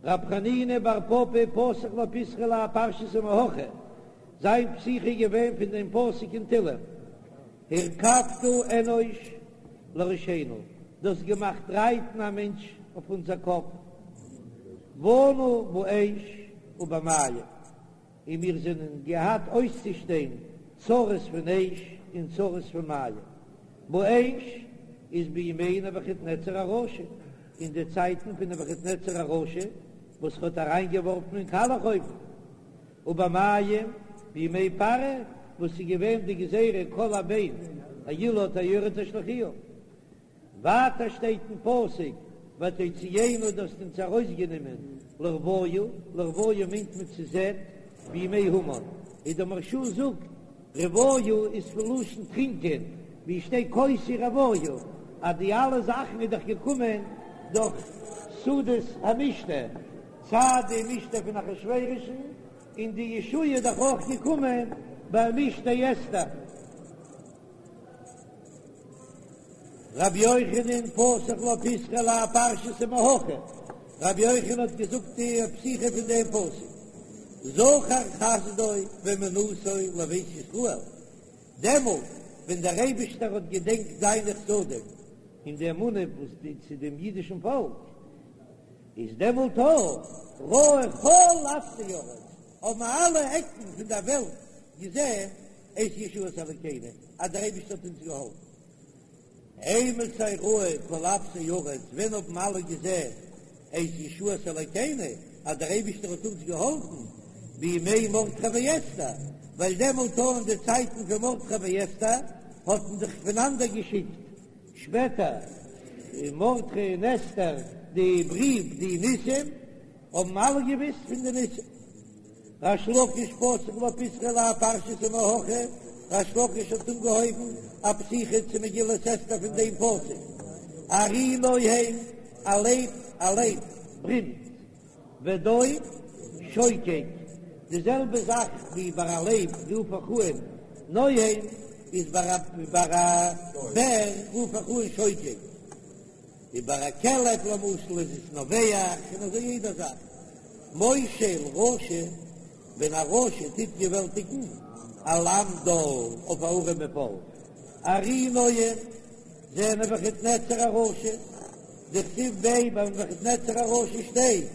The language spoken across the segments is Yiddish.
רב חנינא בר פפא פתח לה פיתחא להאי פרשתא מהכא, זיין פתיחה איז געווען פון דעם פסוק אין תהלים, הרכבת אנוש לראשנו, דו האסט געמאכט רייטן א מענטש אויף אונזער קאפ, באנו באש ובמים, און מיר זענען געהאט אויסצושטיין צרות פון אש און צרות פון מים. באש איז בימי נבוכדנצר הרשע, אין די צייטן פון נבוכדנצר הרשע וואס האט אריינגעווארפן אין קאלעך אויוון, ובמים בימי פרעה וואס איז געווען די גזירה כל הבן הילוד היאורה תשליכוהו. ווייטער שטייט אין פסוק ותוציאנו דו האסט אונז ארויסגענומען לרוויה, לרוויה מיינט מען צו זעט, בימי המן, און דער מהרש"א זאגט רוויה איז פון לשון טרינקען, ווי שטייט כוסי רוויה, אז די אלע זאכן איז דאך געקומען דורך סעודת המשתה, סיי די משתה פון אחשורוש'ן און די ישועה איז דאך אויך געקומען ביי משתה אסתר. רבי יוחנן פתח לה פיתחא להאי פרשתא מהכא, רבי יוחנן האט געזאגט די פתיחה פון דעם פסוק, זכר חסדו ואמונתו לבית ישראל, דעמאלט ווען דער אייבישטער האט געדענקט זיינע חסדים און די אמונה וואס די צו דעם אידישן פאלק, איז דעמאלט ראו כל אפסי ארץ, האבן אלע עקן פון דער וועלט געזען את ישועת אלוקינו, אז דער אייבערשטער האט אונז געהאלפן. אימתי ראו כל אפסי ארץ, ווען האבן אלע געזען את ישועת אלוקינו, אז דער אייבערשטער האט אונז געהאלפן, בימי מרדכי ואסתר, ווייל דעמאלט אין די צייטן פון מרדכי ואסתר האט מען זיך פונאנדערגעשיקט, שפעטער מרדכי און אסתר די בריוו די ניסים, האבן אלע געוויסט פון די ניסים. ריש לקיש פתח לה פיתחא להאי פרשתא מהכא, ריש לקיש האט אנגעהויבן א פתיחה צו מגילת אסתר פון דעם פסוק, ארי נוהם, א לייב, א לייב ברומט, ודוב שוקק, די זעלבע זאך ווי ביי א לייב רוף איך אן נוהם, איז ביי א בער רוף איך אן שוקק. ווי ביי א כלב למשל איז עס נובח און אזוי יעדע זאך. מושל רשע, ווען א רשע טוט געוועלטיגן על עם דל אויף א ארעמע פאלק. ארי נוהם, זה נבוכדנצר הרשע, דכתיב ביה ביי נבוכדנצר הרשע שטייט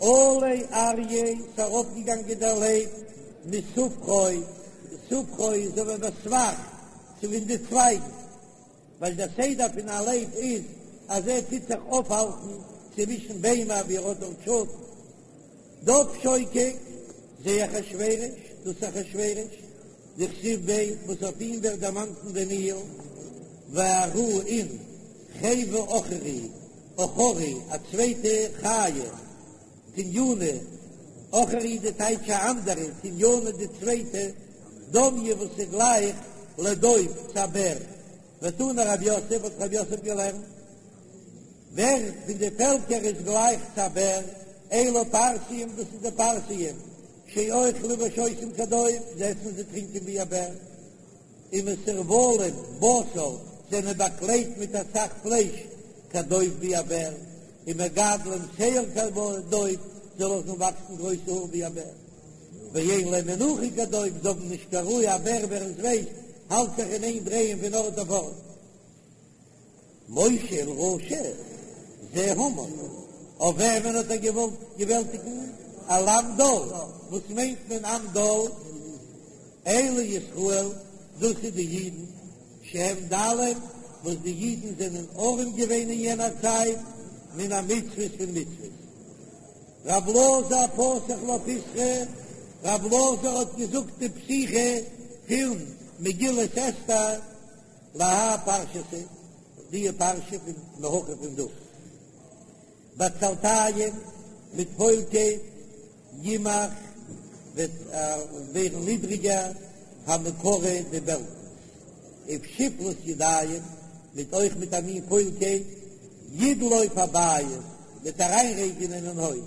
עלה אריה ס'ארויפגעגאנגען דער לייב מסובכו, סובכו איז אזוי ווי בסבך צווישן די צווייגן. ווייל דער סדר פון א לייב איז אז ער טוט זיך אויפהאלטן צווישן ביימער ווי ער האט דארט שאטן. דוב שוקק, זה אחשורוש, דאס אחשורוש, דכתיב ביה וואס אויף אים ווערט דערמאנט אין דניאל, וארא און חוה עכורי, עכורי, א צווייטע חיה, תניינא, עכורי די טייטש א אנדערע, תניינא די צווייטע, דומיא וואס איז גלייך לדוב צו א בער, ותני רב יוסף האט רב יוסף געלערנט, ווער פון די פעלקער איז גלייך צו א בער, אלו פרסיים דאס איז די פרסיים, שאוכלים ושותים כדוב, זיי עסן און זיי טרינקען ווי א בער. ומסורבלים בשר זענען באקלעדט מיט אסאך פלייש כדוב ווי א בער, ומגדלים שער כדוב זיי לאזן וואקסן גרויסע האר ווי א בער, ואין להם מנוחה כדוב זיי האבן נישט קיין רוה, א בער ווער עס ווייסט האלט זיך אין איין דרייען פון ארט אויף ארט. מושל רשע זה המן, אויף וועמען האט ער געוואלט געוועלטיגן? על עם דל, וואס מיינט מען עם דל? אלו ישראל, דאס איז די אידן, שהם דלים, וואס די אידן זענען ארעם געווען אין יענער צייט, מן המצוות פון מצוות. רב אלעזר פתח לה פיתחא, רב אלעזר האט געזאגט די פתיחה פון מגילת אסתר, להאי פרשתא, די פרשה פון מהכא פון דא, בעצלתים מיט פוילקייט, ימך וועט ווערן נידריגער, המקרה די בעלקנס, ובשפלות ידיים, מיט אויך מיט א מין פוילקייט, ידלוף הבית, וועט אריינרעגענען אין הויז,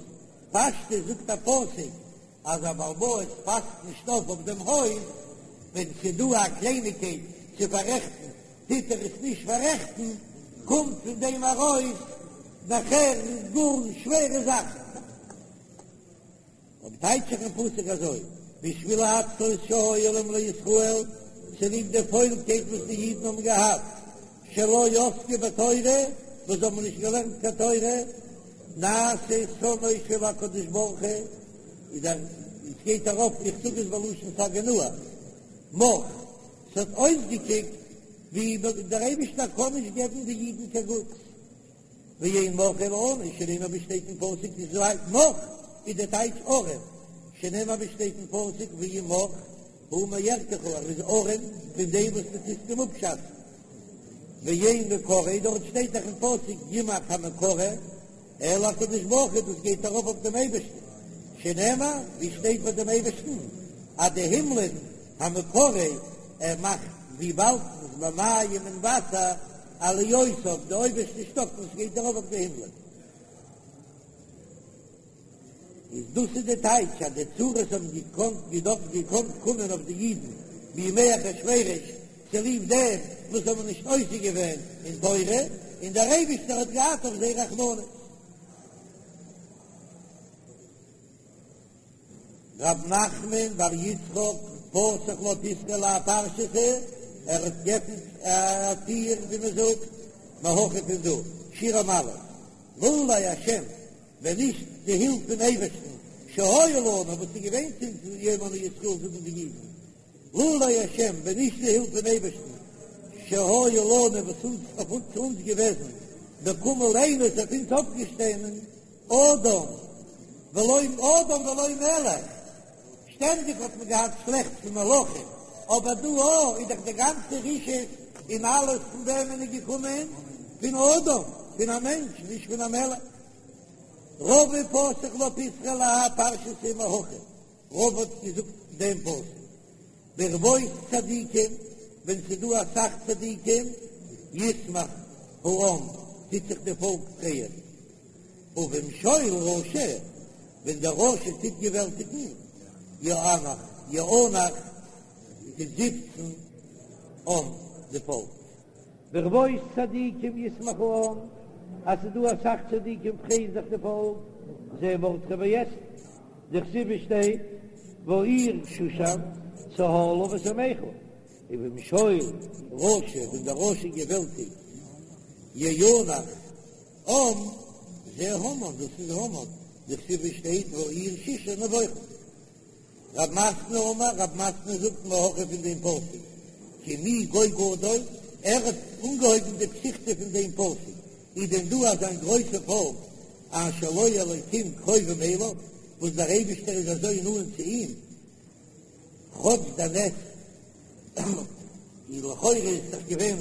פשטות זאגט א פסוק אז א בעל בית פאסט נישט אויף אויף דעם הויז, ווען ס'דא א קלייניגקייט צו פאררעכטן טוט ער עס נישט פאררעכטן, קומט פון דעם ארויס נאכער גאר שווערע זאכן. אויב טייטש איך אין פסוק אזוי, בשביל העצלות שהיו להם לישראל, צוליב די פוילקייט וואס די אידן האבן געהאט, שלא עסקו בתורה, וואס זיי האבן נישט געלערנט קיין תורה, נעשה שונאו של הקדוש ברוך הוא, איז דער, עס גייט ארויף, איך זאג עס בלשון סגי נהור, מך, ס'האט אויסגעקוקט ווי דער אייבישטער קען נישט געבן די אידן קיין גוטס. ואין מך אלא עני, שנאמר ווי שטייט אין פסוק איז לייט מך איז די טייטש ארעם, שנאמר ווי שטייט אין פסוק ואם מך הוא מערכך ער איז ארעם פון דעם וואס דו טוסט אים אפשאצן, ואין מקרה דארט שטייט דאך אין פסוק ימך המקרה אלא הקדוש ברוך הוא דאס גייט ארויף אויף דעם אייבערשטן, שנאמר ווי שטייט ביי דעם אייבערשטן אז די הימלען המקרה ער מאכט ווי וואלקנס במים אין וואסער עליותיו, די אויבערשטע שטאק וואס גייט ארויף אויף די הימלען. איז דאס איז די טייטש אז די צרות האבן געקאנט געדארפט געקאנט קומען אויף די אידן בימי אחשורוש צוליב דעם וואס זיי האבן נישט עוסק געווען אין תורה און דער אייבישטער האט געהאט אויף זיי רחמנות. רב נחמן בר יצחק פתח לה פיתחא להאי פרשתא, ער האט געפנט א טיר ווי מען זאגט, מהכא פון דא, שיר המעלות, לולי השם, ווען נישט די הילף פון אייבערשטן, שהיה לנו, וואס איז געווען צו אונז יאמרון ישראל זאגן די אידן, לולי השם, ווען נישט די הילף פון אייבערשטן, שהיה לנו, וואס אונז אויף אונז צו אונז געוועזן, וקם עלינו איז אויף אונז אויפגעשטאנען, אדם ולא אדם ולא מלך, שטענדיג האט מען געהאט שלעכטס פון מלכים, אבער דא אוי איז דאך די גאנצע רשעות און אלעס פון וועמען איז געקומען? פון אדם, פון א מענטש, נישט פון א מלך. רבא פתח לה פיתחא להאי פרשתא מהכא, רבא האט געזאגט דעם פסוק, ברבות צדיקים, ווען ס'איז דא אסאך צדיקים, ישמח העם, טוט זיך די פאלק פרייען, ובמשול רשע, ווען דער רשע טוט געוועלטיגן, יאנח, יאנח, טוט זיפצן עם, די פאלק. ברבות צדיקים ישמח העם, אז ס'איז דא אסאך צדיקים פרייט זיך די פאלק, זה מרדכי ואסתר, דכתיב שטייט והעיר שושן צהלה ושמחה, ובמשול רשע, ווען דער רשע געוועלטיגט, יאנח עם, זה המן, דאס איז המן, דכתיב שטייט והעיר שושן נבוכה. רב מתנה אמר, רב מתנה זאגט מהכא פון דעם פסוק, כי מי גוי גדול, ער האט אנגעהויבן די פתיחתא פון דעם פסוק, איז דען דא אזא גרויסע פאלק אשר לו אלוקים קרובים אליו, וואס דער אייבישטער איז אזוי נאנט צו אים, כאטש דער נס איז לכאורה איז דאך געווען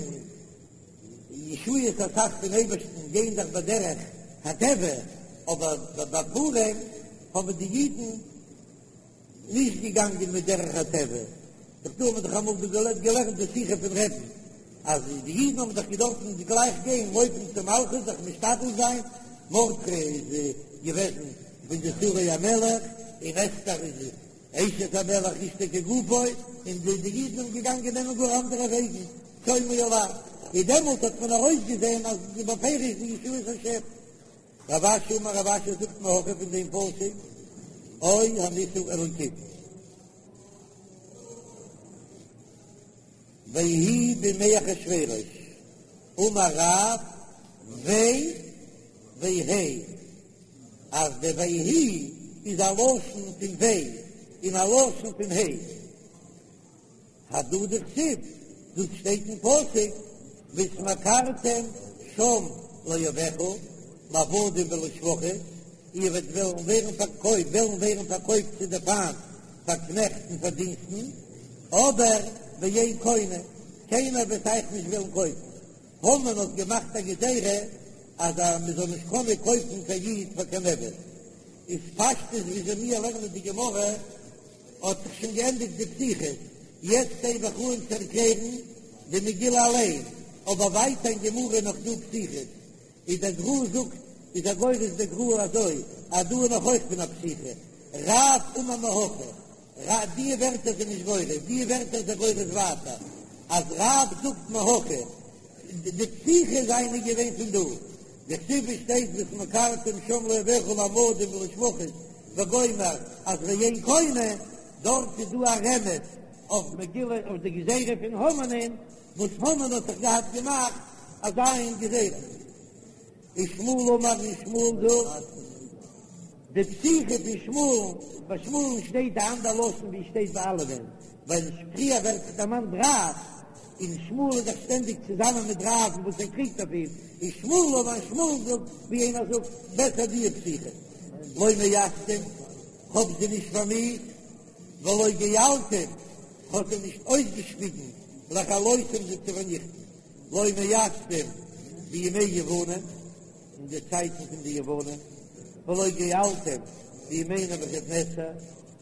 ישועות אסאך פון אייבערשטן גייען דאך בדרך הטבע, אבער ביי פורים האבן די אידן נישט געגאנגען מיט דרך הטבע, דאך דא האט מען דאך אמאל דא געלערנט די שיחה פון רבי'ן אז די אידן האבן דאך געדארפן גלייך גיין לויפן צום מלכות זיך משתדל זיין, מרדכי איז געוועזן פון די שרי המלך און אסתר איז אשת המלך אשתו כגופו, און די די אידן זענען געגאנגען נעמען גאר אנדערע וועגן, צומו עלי, און דעמאלט האט מען ארויסגעזען אז עס איז בפירוש די ישועת השם. רב אשי אמר רב אשי זאגט מהכא פון דעם פסוק, או הנסה אלוקים. ויהי בימי אחשורוש, אמר רב ויי והי אז די ויהי איז א לשון פון ויי און א לשון פון הי. הדא דכתיב, דאס שטייט אין פסוק, והתמכרתם שם לאויביך, לעבדים ולשפחות, איר וועט וועלן ווערן פארקויפט, וועלן ווערן פארקויפט צו די פיינט פאר קנעכט און פאר דינסטן, אבער ואין קונה, קיינער וועט אייך נישט וועלן קויפן. המן האט געמאכט א גזירה אז מען זאל נישט קענען קויפן קיין איד פאר קיין עבד, איז פשטות וויאזוי מיר לערנען די גמרא האט זיך שוין געענדיגט די פתיחות, יעצט הייב איך אן צו ערקלערן די מגילה אליין, אבער ווייטער אין גמרא איז נאך דא פתיחות, איז דער גר"א זאגט איז ער גורס דער גר"א אזוי אז דא איז נאך אויך פון א פתיחה, רב אמר מהכא, רב די ווערטער זענען נישט גורס, די ווערטער איז ער גורס ווייטער אז רב זאגט מהכא, די פתיחה זיינע געווען פון דא, דכתיב שטייט והתמכרתם שם לאויביך לעבדים ולשפחות. וגומר אז ואין קונה, דארט איז דא א רמז אויף מגילה אויף די גזירה פון המן'ען וואס המן האט זיך געהאט געמאכט אזא מין גזירה. ושמואל אמר און שמואל זאגט, די פתיחה פון שמואל, ביי שמואל'ן שטייט א אנדער לשון ווי שטייט ביי אלעמען, ווייל פריער ווערט דערמאנט רב, און שמואל איז דאך שטענדיג צוזאמען מיט רב'ן וואס ער קריגט אויף אים, ושמואל אמר שמואל זאגט ווי איינער זאגט בעסער די פתיחה, לא מאסתים, כ'האב זיי נישט פארמיאוסט, ולא געלתים, כ'האב זיי נישט אויסגעשפיגן, לכלותם זיי צו פארניכטן. לא מאסתים בימי יוונים, אין די צייטן פון די יוונים, ולא געלתים בימי נבוכדנצר,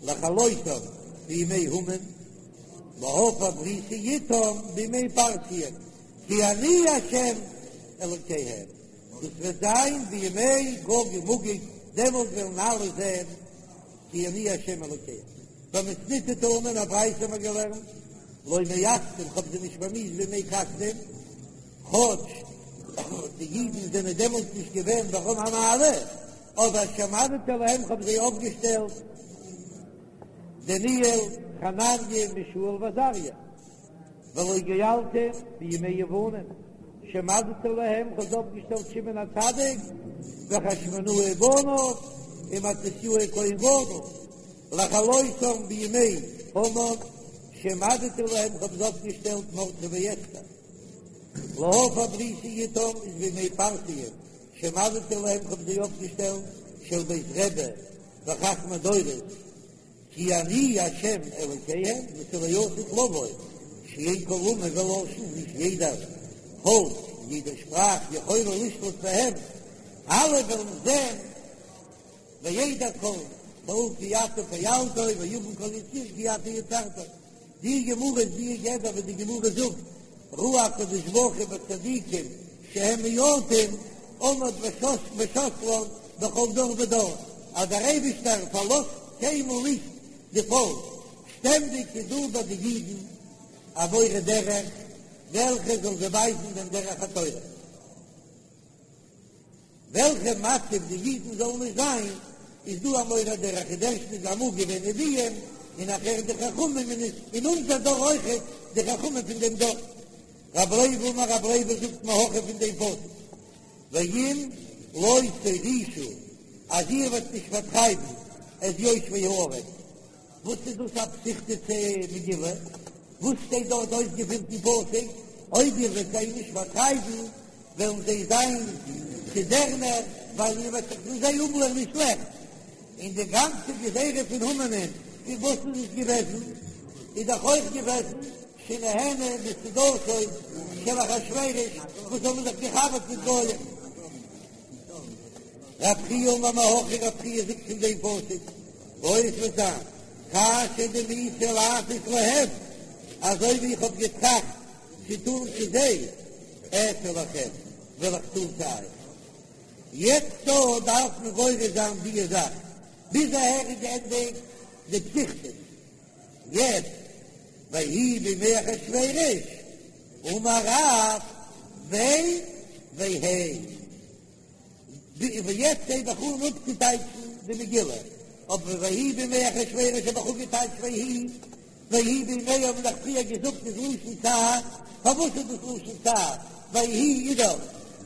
לכלותם בימי המן, להפר בריתי אתם בימי פרסיים, כי אני השם אלוקיהם, דאס וועט זיין בימי גוג ומגוג, דעמאלט וועלן אלע זען כי אני השם אלוקיהם. במתניתא תנא אין א ברייתא האבן מיר געלערנט, לא מאסתים, כ'האב זיי נישט פארמיאוסט בימי כשדים, כאטש די אידן זענען דעמאלט נישט געווען ברום המעלה, אבער שהעמדתי להם כ'האב זיי אויפגעשטעלט דניאל, חנניה, מישאל ועזריה. ולא געלתים בימי יוונים, שהעמדתי להם כ'האב זיי אויפגעשטעלט שמעון הצדיק וחשמונאי ובניו ומתתיהו כהן גדול, לכלותם בימי המן, שהעמדתי להם כ'האב זיי אויפגעשטעלט מרדכי ואסתר, להפר בריתי אתם איז בימי פרסיים, שהעמדתי להם כ'האב זיי אויפגעשטעלט של בית רבי וחכמי דורות. כי אני ה' אלוקיהם דאס איז לעתיד לבוא, שאין כל אומה ולשון, נישט יעדער פאלק, יעדע שפראך יכולה לשלוט בהם, אלע וועלן זען וידע כל פעול כי אתה פעלתו ויבין כל יצור כי אתה יצרתו. די גמרא איז די גדר וואס די גמרא זאגט ראה הקדוש ברוך הוא בצדיקים שהם מועטים עמד ושתלן בכל דור ודור, אז דער אייבישטער פארלאזט קיינמאל נישט די פאלק, שטענדיג איז דא ביי די אידן א מורה דרך וועלכע זאל זיי ווייזן דעם דרך התורה. וועלכע מצב די אידן זאלן נישט זיין, איז דא א מורה דרך, איז ערשטנס אמאל געווען נביאים, און נאכער די חכמים, און אין אונזער דור אויכעט די חכמים פון דעם דור. רב לוי אמר רב לוי זאגט מהכא פון דעם פסוק, ואם לא תורישו, אז איר וועט נישט פארטרייבן את יושבי הארץ, וואס איז דאס א פתיחתא מגילה? וואס שטייט דארט אויסגעפירט אין פסוק? אויב איר וועט זיי נישט פארטרייבן, וועלן זיי זיין צו דערנער, ווייל איר וועט זיך פון זיי אפלערנען שלעכטס. און די גאנצע גזירה פון המן'ען, פון וואס איז עס געוועזן? איז דאך אויך געוועזן שנהנו מסעודתו של אחשורוש, וואס האבן זיך געחבר'ט מיט גויים. רב חייא אמר מהכא, רב חייא זאגט פון דעם פסוק, והיה עס וועט זיין, כאשר דמיתי לעשות להם, אזוי ווי איך האב געטראכט צו טון צו זיי, אעשה לכם, וועל איך טון צו אייך. יעצט דא דארף מען גורס זיין די זאך, ביז אהער איז געענדיגט די פתיחתא, יעצט ויהי בימי אחשורוש, אמר רב ויה והי. ווי יעצט הייב איך אן אפצוטייטשן די מגילה, אבער ויהי בימי אחשורוש האב איך אפגעטייטשט ויהי, ויהי בימי האבן מיר דאך פריער געזאגט איז לשון צער, פארוואס איז דאס לשון צער? ויהי איז דאך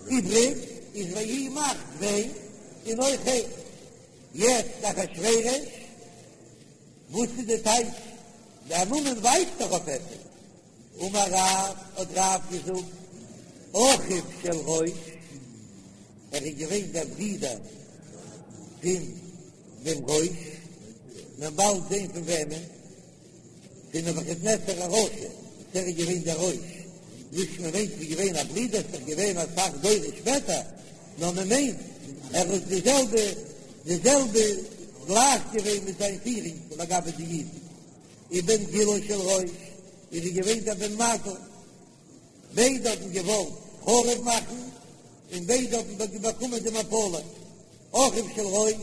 איבריג, איז ויהי מאכט ויה און אויך הי. יעצט אחשורוש, וואס איז די טייטש? דער נאמען ווייזט דאך אויף עפעס. אמר רב, האט רב געזאגט, אחיו של ראש, ער איז געווען דער ברודער פון דעם ראש, מ'וועט באלד זען פון וועמען, פון נבוכדנצר הרשע, וואס ער איז געווען דער ראש, נישט מען מיינט ס'איז געווען א ברודער, ס'איז דאך געווען אסאך דורות שפעטער, נאר מען מיינט ער איז די זעלבע, די זעלבע גלייך געווען מיט זיין פירונג לגבי די אידן. ובן גילו של ראש איז ער געווען דער בן מזל, ביידע האבן געוואלט חרוב מאכן און ביידע האבן באקומען די מפלה, אחיו של ראש,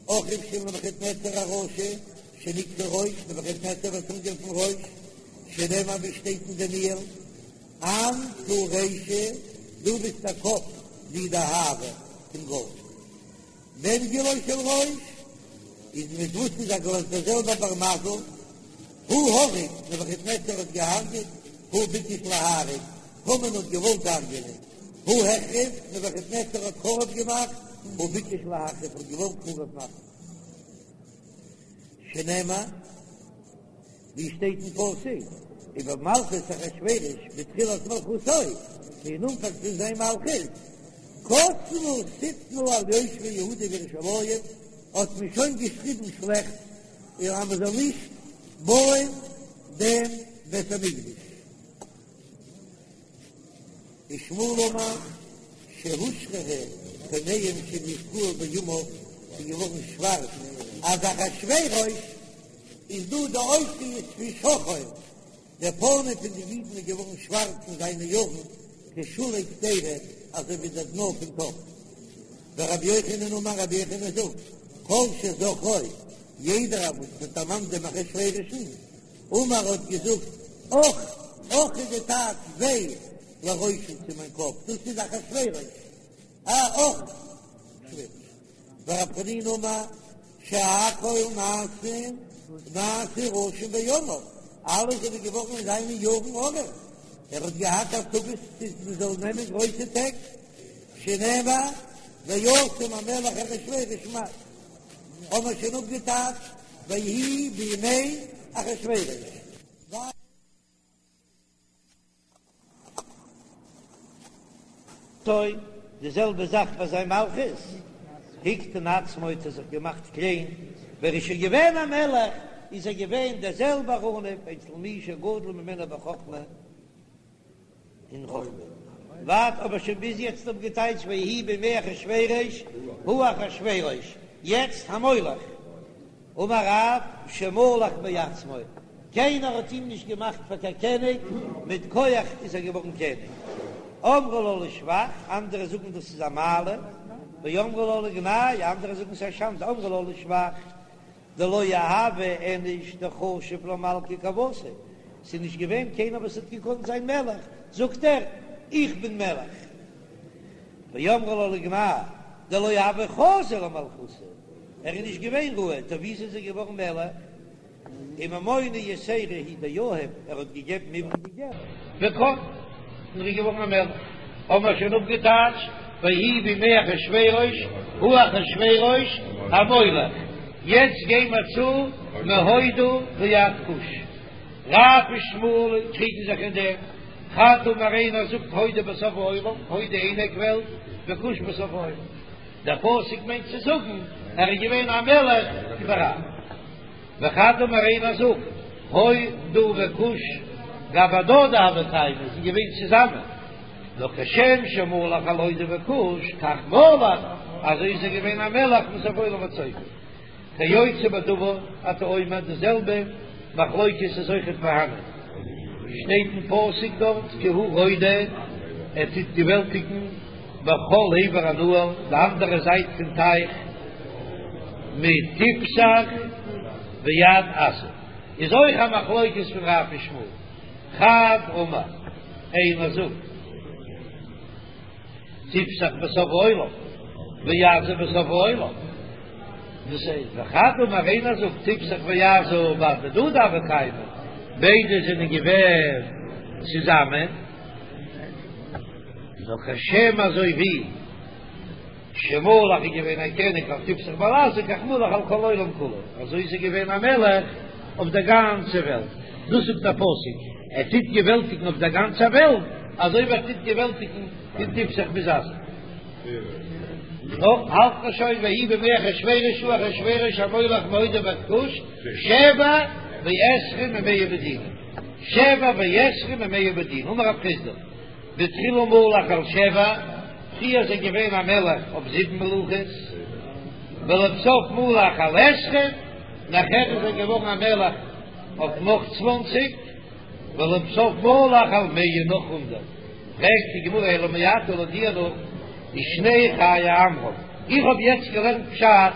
אחיו של נבוכדנצר הרשע, שנקרא ראש, נבוכדנצר ווערט אנגערופן ראש, שנאמר ווי שטייט אין דניאל, אנת הוא רישא, דו ביסט דער קאפ, די דהבא פון גאלד. בן גילו של ראש. איז מיט וואס איז ער גלייך דער זעלבער בר מזל? הוא הרג, נבוכדנצר האט געהארגעט, הוא ביקש להרוג, המן האט געוואלט הרג'ענען, הוא החריב, נבוכדנצר האט חרוב געמאכט, הוא ביקש להחריב, האט געוואלט חרוב מאכן. שנאמר, ווי שטייט אין פסוק, ובמלכות אחשורוש בתחילת מלכותו, אין אנפאנג פון זיין מלכות, כתבו שטנה על יושבי יהודה וירושלים, האט מען שוין געשריבן שלעכטס אז מען זאל נישט בויען דעם בית המקדש. ושמואל אמר שהושחרו פניהם של ישראל בימיו, ס'איז געווארן שווארץ, אז אחשורוש איז דא די אותיות פון שחור, דער פנים פון די אידן איז געווארן שווארץ אין זיינע יארן, כשולי קדירה, אזוי ווי דער דנא פון טאפ. ורבי יוחנן אמר, רבי יוחנן זאגט, כל שזוכרו, יעדער וואס האט דערמאנט דעם אחשורוש'ן, אמר האט געזאגט, אך, אך איז די טייטש וויי לראשי צו מיין קאפ, דאס איז אחשורוש, א אך, ורב חנינא אמר, שהכל נעשין נעשו רשים בימיו, אלע זענען געווארן אין זיינע יארן ארעם, ער האט געהאט השגות מען זאל נעמען גרויסע טעג, שנאמר וישם המלך אחשורוש מס, האבן מיר שוין אפגעטייטשט ויהי בימי אחשורוש. טוי, די זעלבע זאך ביי זיין מלכות, הקטין עצמו האט ער זיך געמאכט קליין, ווען ער איז שוין געווען א מלך איז ער געווען דער זעלבער עניו אצל מי שגדול ממנו בחכמה אין חכמה. ווייט האב איך שוין ביז יעצט אפגעטייטשט ויהי בימי אחשורוש הוא אחשורוש, יעצט המולך. אמר רב שמלך מעצמו, קיינער האט אים נישט געמאכט פאר קיין קעניג, מיט כח איז ער געווארן קעניג. אמרו לה לשבח, אנדערע זאגן דאס איז א מעלה, ואמרי לה לגנאי, אנדערע זאגן ס'איז א שאנדע, אמרו לה לשבח, דלא הוה איניש דחשיב למלכא כוותיה, ס'איז נישט געווען קיינער וואס האט געקאנט זיין מלך, זאגט ער, איך בין מלך. ואמרי לה לגנאי, דלא הוה חזי למלכותא, ער איז נישט געווען ראוי, טא וויאזוי איז ער געווארן מלך? וממונא יתירא הוא דיהיב, ער האט געגעבן איבריגע געלט. וקם, און ער איז געווארן א מלך. האבן מיר שוין אפגעטייטשט, ויהי בימי אחשורוש, הוא אחשורוש המולך. יעצט גייען מיר צו מהודו ועד כוש. רב ושמואל קריגן זיך אין דעם. חד אמר איינער זאגט הודו בסוף העולם, הודו אין עק וועלט, וכוש בסוף העולם. דער פסוק מיינט צו זאגן ער איז געווען א מלך איבעראל. וחד אמר איינער זאגט הודו וכוש גבי הדדי הוו קיימי זענען געווען צוזאמען. נאר כשם שמלך על הודו וכוש כך מלך, אזוי איז ער געווען א מלך מסוף העולם ועד סופו. כיוצא בדבר אתה אומר די זעלבע מחלוקת איז אויכעט פארהאנען שטייט אין פסוק דארט כי הוא רודה ער טוט געוועלטיגן בכל עבר הנהר די אנדערע זייט פון טייך מתפסח ועד עזה איז אויך א מחלוקת פון רב ושמואל חד אמר איינער זאגט תפסח בסוף העולם ועזה בסוף העולם. דאס איז וחד אמר איינער זאגט תפסח ועזה בהדדי הוו קיימי, ביידע זענען געווען צוזאמען, נאר כשם אזוי ווי שמלך איז געווען א קעניג אויף תפסח ועל עזה כך מלך על כל העולם כולו, אזוי איז ער געווען א מלך אויף דער גאנצער וועלט, דאס זאגט דער פסוק, ער טוט געוועלטיגן אויף דער גאנצער וועלט, אזוי ווי ער טוט געוועלטיגן פון תפסח ביז עזה. נו, האלט מען שוין ויהי בימי אחשורוש הוא אחשורוש המולך מהודו ועד כוש שבע ועשרים ומאה מדינה שבע ועשרים ומאה מדינה אמר רב חסדא בתחילה מלך על שבע פריער איז ער געווען א מלך אויף זיבן מלוכות ולבסוף מלך על עשרים נאכער איז ער געווארן א מלך אויף נאך צוואנציג ולבסוף מלך על מאה נאך הונדערט. פרעגט די גמרא אלא מעתה לויט דיר נאך ושני חיי עמרם, איך האב יעצט געלערנט פשט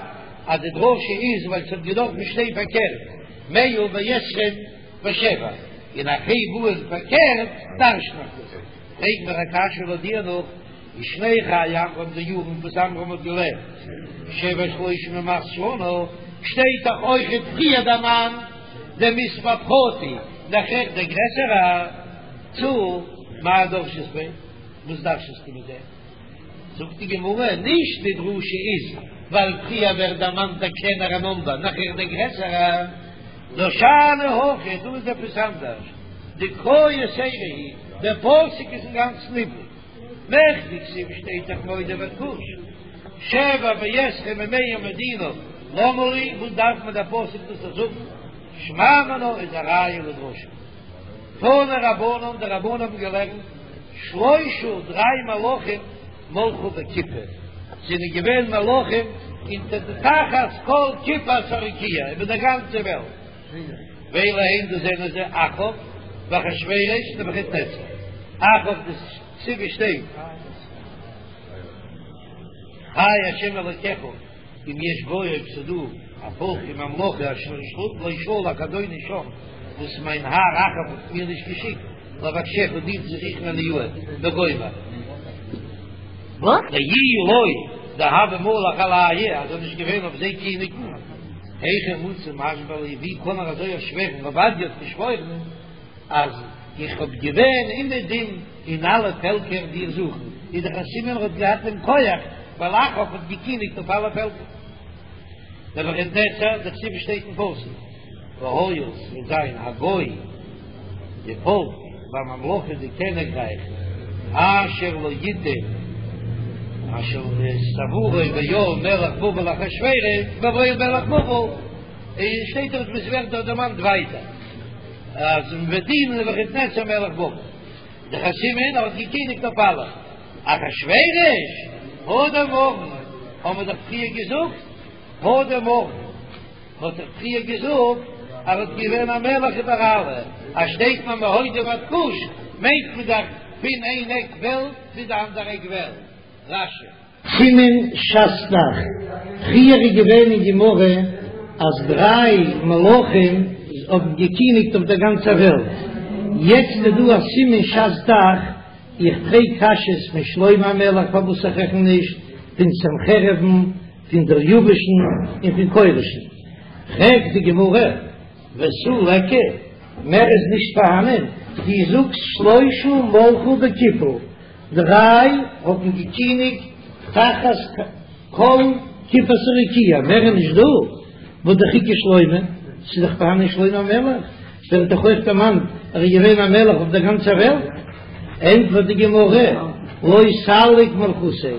אז די דרשה איז ווייל ס'האט געדארפן שטיין פארקערט מאה ועשרים ושבע, און איך הייב אן פארקערט דרש'ן איך דאס, פרעג מיר א קשיא לויט דיר נאך ושני חיי עמרם די יארן וואס עמרם האט געלעבט שבע ושלושים ומאת שנה. שטייט דאך אויכעט פריער דערמאנט דער מספר פחותי, נאכער דער גרעסערע צאל, מאי דרשת ביה? וואס דרש'סטו מיט דעם? זאגט די גמרא, נישט די דרשה איז ווייל פריער ווערט דערמאנט דער קלענערע נומבער נאכער דער גרעסערע, נאר שאני הכא, דא איז עפעס אנדערש, דקרא יתירא היא, דער פסוק איז אינגאנצן איבריג, מכדי כתיב שטייט דאך מהודו ועד כוש, שבע ועשרים ומאה מדינה, למה לי, וואס דארף מיר דער פסוק דאס זאגן, שמע מינה איז א ראיה לדרשה. תנו רבנן, די רבנן האבן געלערנט, שלושה דריי מלכים מלכו בכיפה, זענען געווען מלכים אונטער די תחת כל כיפת הרקיע איבער דער גאנצער וועלט, ואלו הן דאס זענען זיי אחאב ואחשורוש נבוכדנצר, אחאב דכתיב שטייט חי השם אלוקיך. אם יש גוי אויב ס'איז דא א פאלק וממלכה אשר לא שלח אדוני שם וואס מיין האר אחאב האט מיר נישט געשיקט לבקשך דיר צו זוכן אליהו וגומר דאי לא דהוה מליך עלייהו אז ער איז נישט געווען אויף זיי קיניגן היכי מצי משבע להו ווי קען ער אזוי שווערן עובדיה האט געשוואוירן אז איך האב געווען אומעדום אין אלע פעלקער דיר זוכן, איז דאך א סימן ער האט געהאט דעם כח, ווייל אחאב האט געקיניגט אויף אלע פעלקער. נבוכדנצר, דכתיב שטייט אין פסוק, והיה ס'וועט זיין הגוי, די פאלק, והממלכה די קעניגרייך, אשר לא יתן, אשר את עבורו בעול מלך בבל אחשורוש, בבעול מלך בבל, און שטייט דארט וואס ווערט דארט דערמאנט ווייטער. אז מ'וועט דינען נבוכדנצר מלך בבל. דאך א סימן ער האט געקיניגט אויף אלע. אחשורוש, הא דאמרן, האבן מיר דאך פריער געזאגט, הא דאמרן, מ'האט דאך פריער געזאגט אז ער האט געווען א מלך איבער אלע, אז שטייט מען מהודו ועד כוש מיינט מען דאך פון איין עק וועלט צו די אנדערע עק וועלט. רש"י. סימן שס"ך, פריער איז געווען אין גמרא אז דריי מלכים האבן געקיניגט אויף דער גאנצער וועלט, יעצט איז דא א סימן שס"ך, איך פרעג קשיות פון שלמה המלך פארוואס איך רעכן נישט, פון סנחריב'ן, פון דריוש'ן און פון כורש'ן, פרעגט די גמרא, ותו ליכא, מער איז נישט פארהאנען, דו זאגסט שלושה מלכו בכיפה. דריי האבן געקיניגט תחת כל כיפת הרקיע, מער איז נישט דא, והא דאך איכא שלמה, ס'איז דאך פארהאנען שלמה המלך, ווערט דאך אויך דערמאנט ער איז געווען א מלך אויף דער גאנצער וועלט, ענטפערט די גמרא, לא סליק מלכותיה,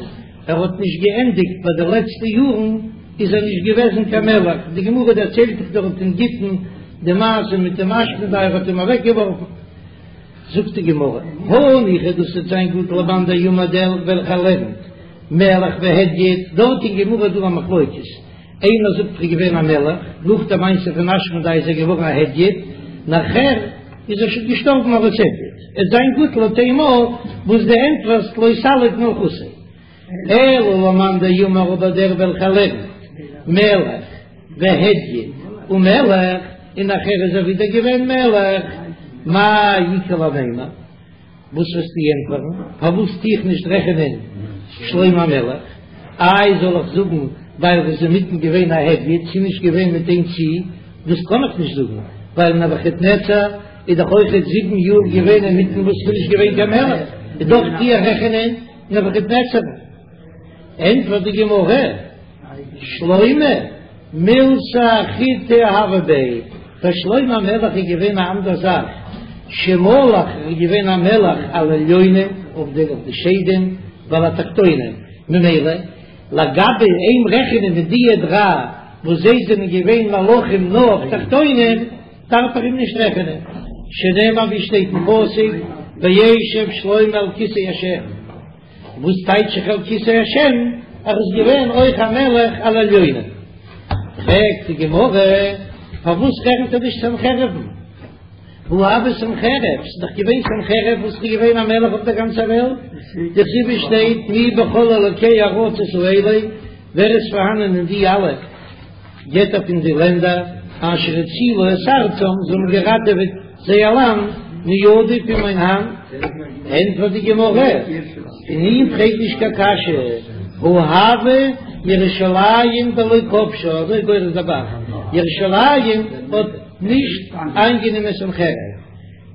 ער האט נישט געענדיגט ביי די לעצטע יארן איז ער נישט געוועזן קיין מלך, די גמרא דערציילט דאך דארט אין גיטין די מעשה מיט דעם אשמדאי ער האט אים אוועקגעווארפן. זאגט די גמרא, הניחא דאס וועט זיין גוט למאן דאמר דער וועלכער לערנט מלך והדיוט, דארט אין גמרא איז דא א מחלוקת, איינער זאגט ער איז געווען א מלך, נאך די מעשה פון אשמדאי איז ער געווארן א הדיוט, נאכער איז ער שוין געשטארבן אלס הדיוט, עס זיין גוט לויט דעם וואס דו ענטפערסט לא סליק מלכותיה. אלא למאן דאמר אבער דער וועלכער לערנט מלך והדיוט ומלך און נאכער איז ער ווידער געווען מלך, מאי איכא למימר? וואס וועסטו ענטפערן? פארוואס טו איך נישט רעכענען שלמה המלך? איי זאל איך זאגן ווייל ער איז אינמיטן געווען א הדיוט, ס'איז נישט געווען מיט איין צי, דאס קען איך נישט זאגן ווייל נבוכדנצר איז דאך אויכעט זיבן יאר געווען אינמיטן וואס ס'איז נישט געווען קיין מלך, איז דאך טו איך רעכענען נבוכדנצר. ענטפערט די גמרא, שלמה מילתא אחריתי הוה ביה, ביי שלמה המלך איז געווען א אנדער זאך, שמלך ער איז געווען א מלך על עליונים אויף די אויף די שדים ועל התחתונים, ממילא לגבי אים רעכענען מיט דיע דריי וואס זיי זענען געווען מלכים נאר אויף תחתונים, דארף איך אים נישט רעכענען, שנאמר ווי שטייט אין פסוק, וישב שלמה על כסא השם, וואס טייטש זיך על כסא השם? ער איז געווען אויך א מלך על עליונים. פרעגט די גמרא, פארוואס רעכנט ער נישט סנחריב'ן? והא הוה סנחריב, ס'איז דאך געווען סנחריב וואס איז געווען א מלך אויף דער גאנצער וועלט, דכתיב שטייט מי בכל אלוקי ארצות האלה, ווער איז פארהאנען אין די אלע געטער פון די לענדער אשר הצילו את ארצם, זיי האבן געראטעוועט זייער לאנד מידי פון מיין האנט, ענטפערט די גמרא, פון אים פרעג נישט קיין קשיא, הא הוה. ירושלים דלא כבשה, אזוי גורס דער ב"ח, ירושלים האט נישט איינגענומען סנחריב.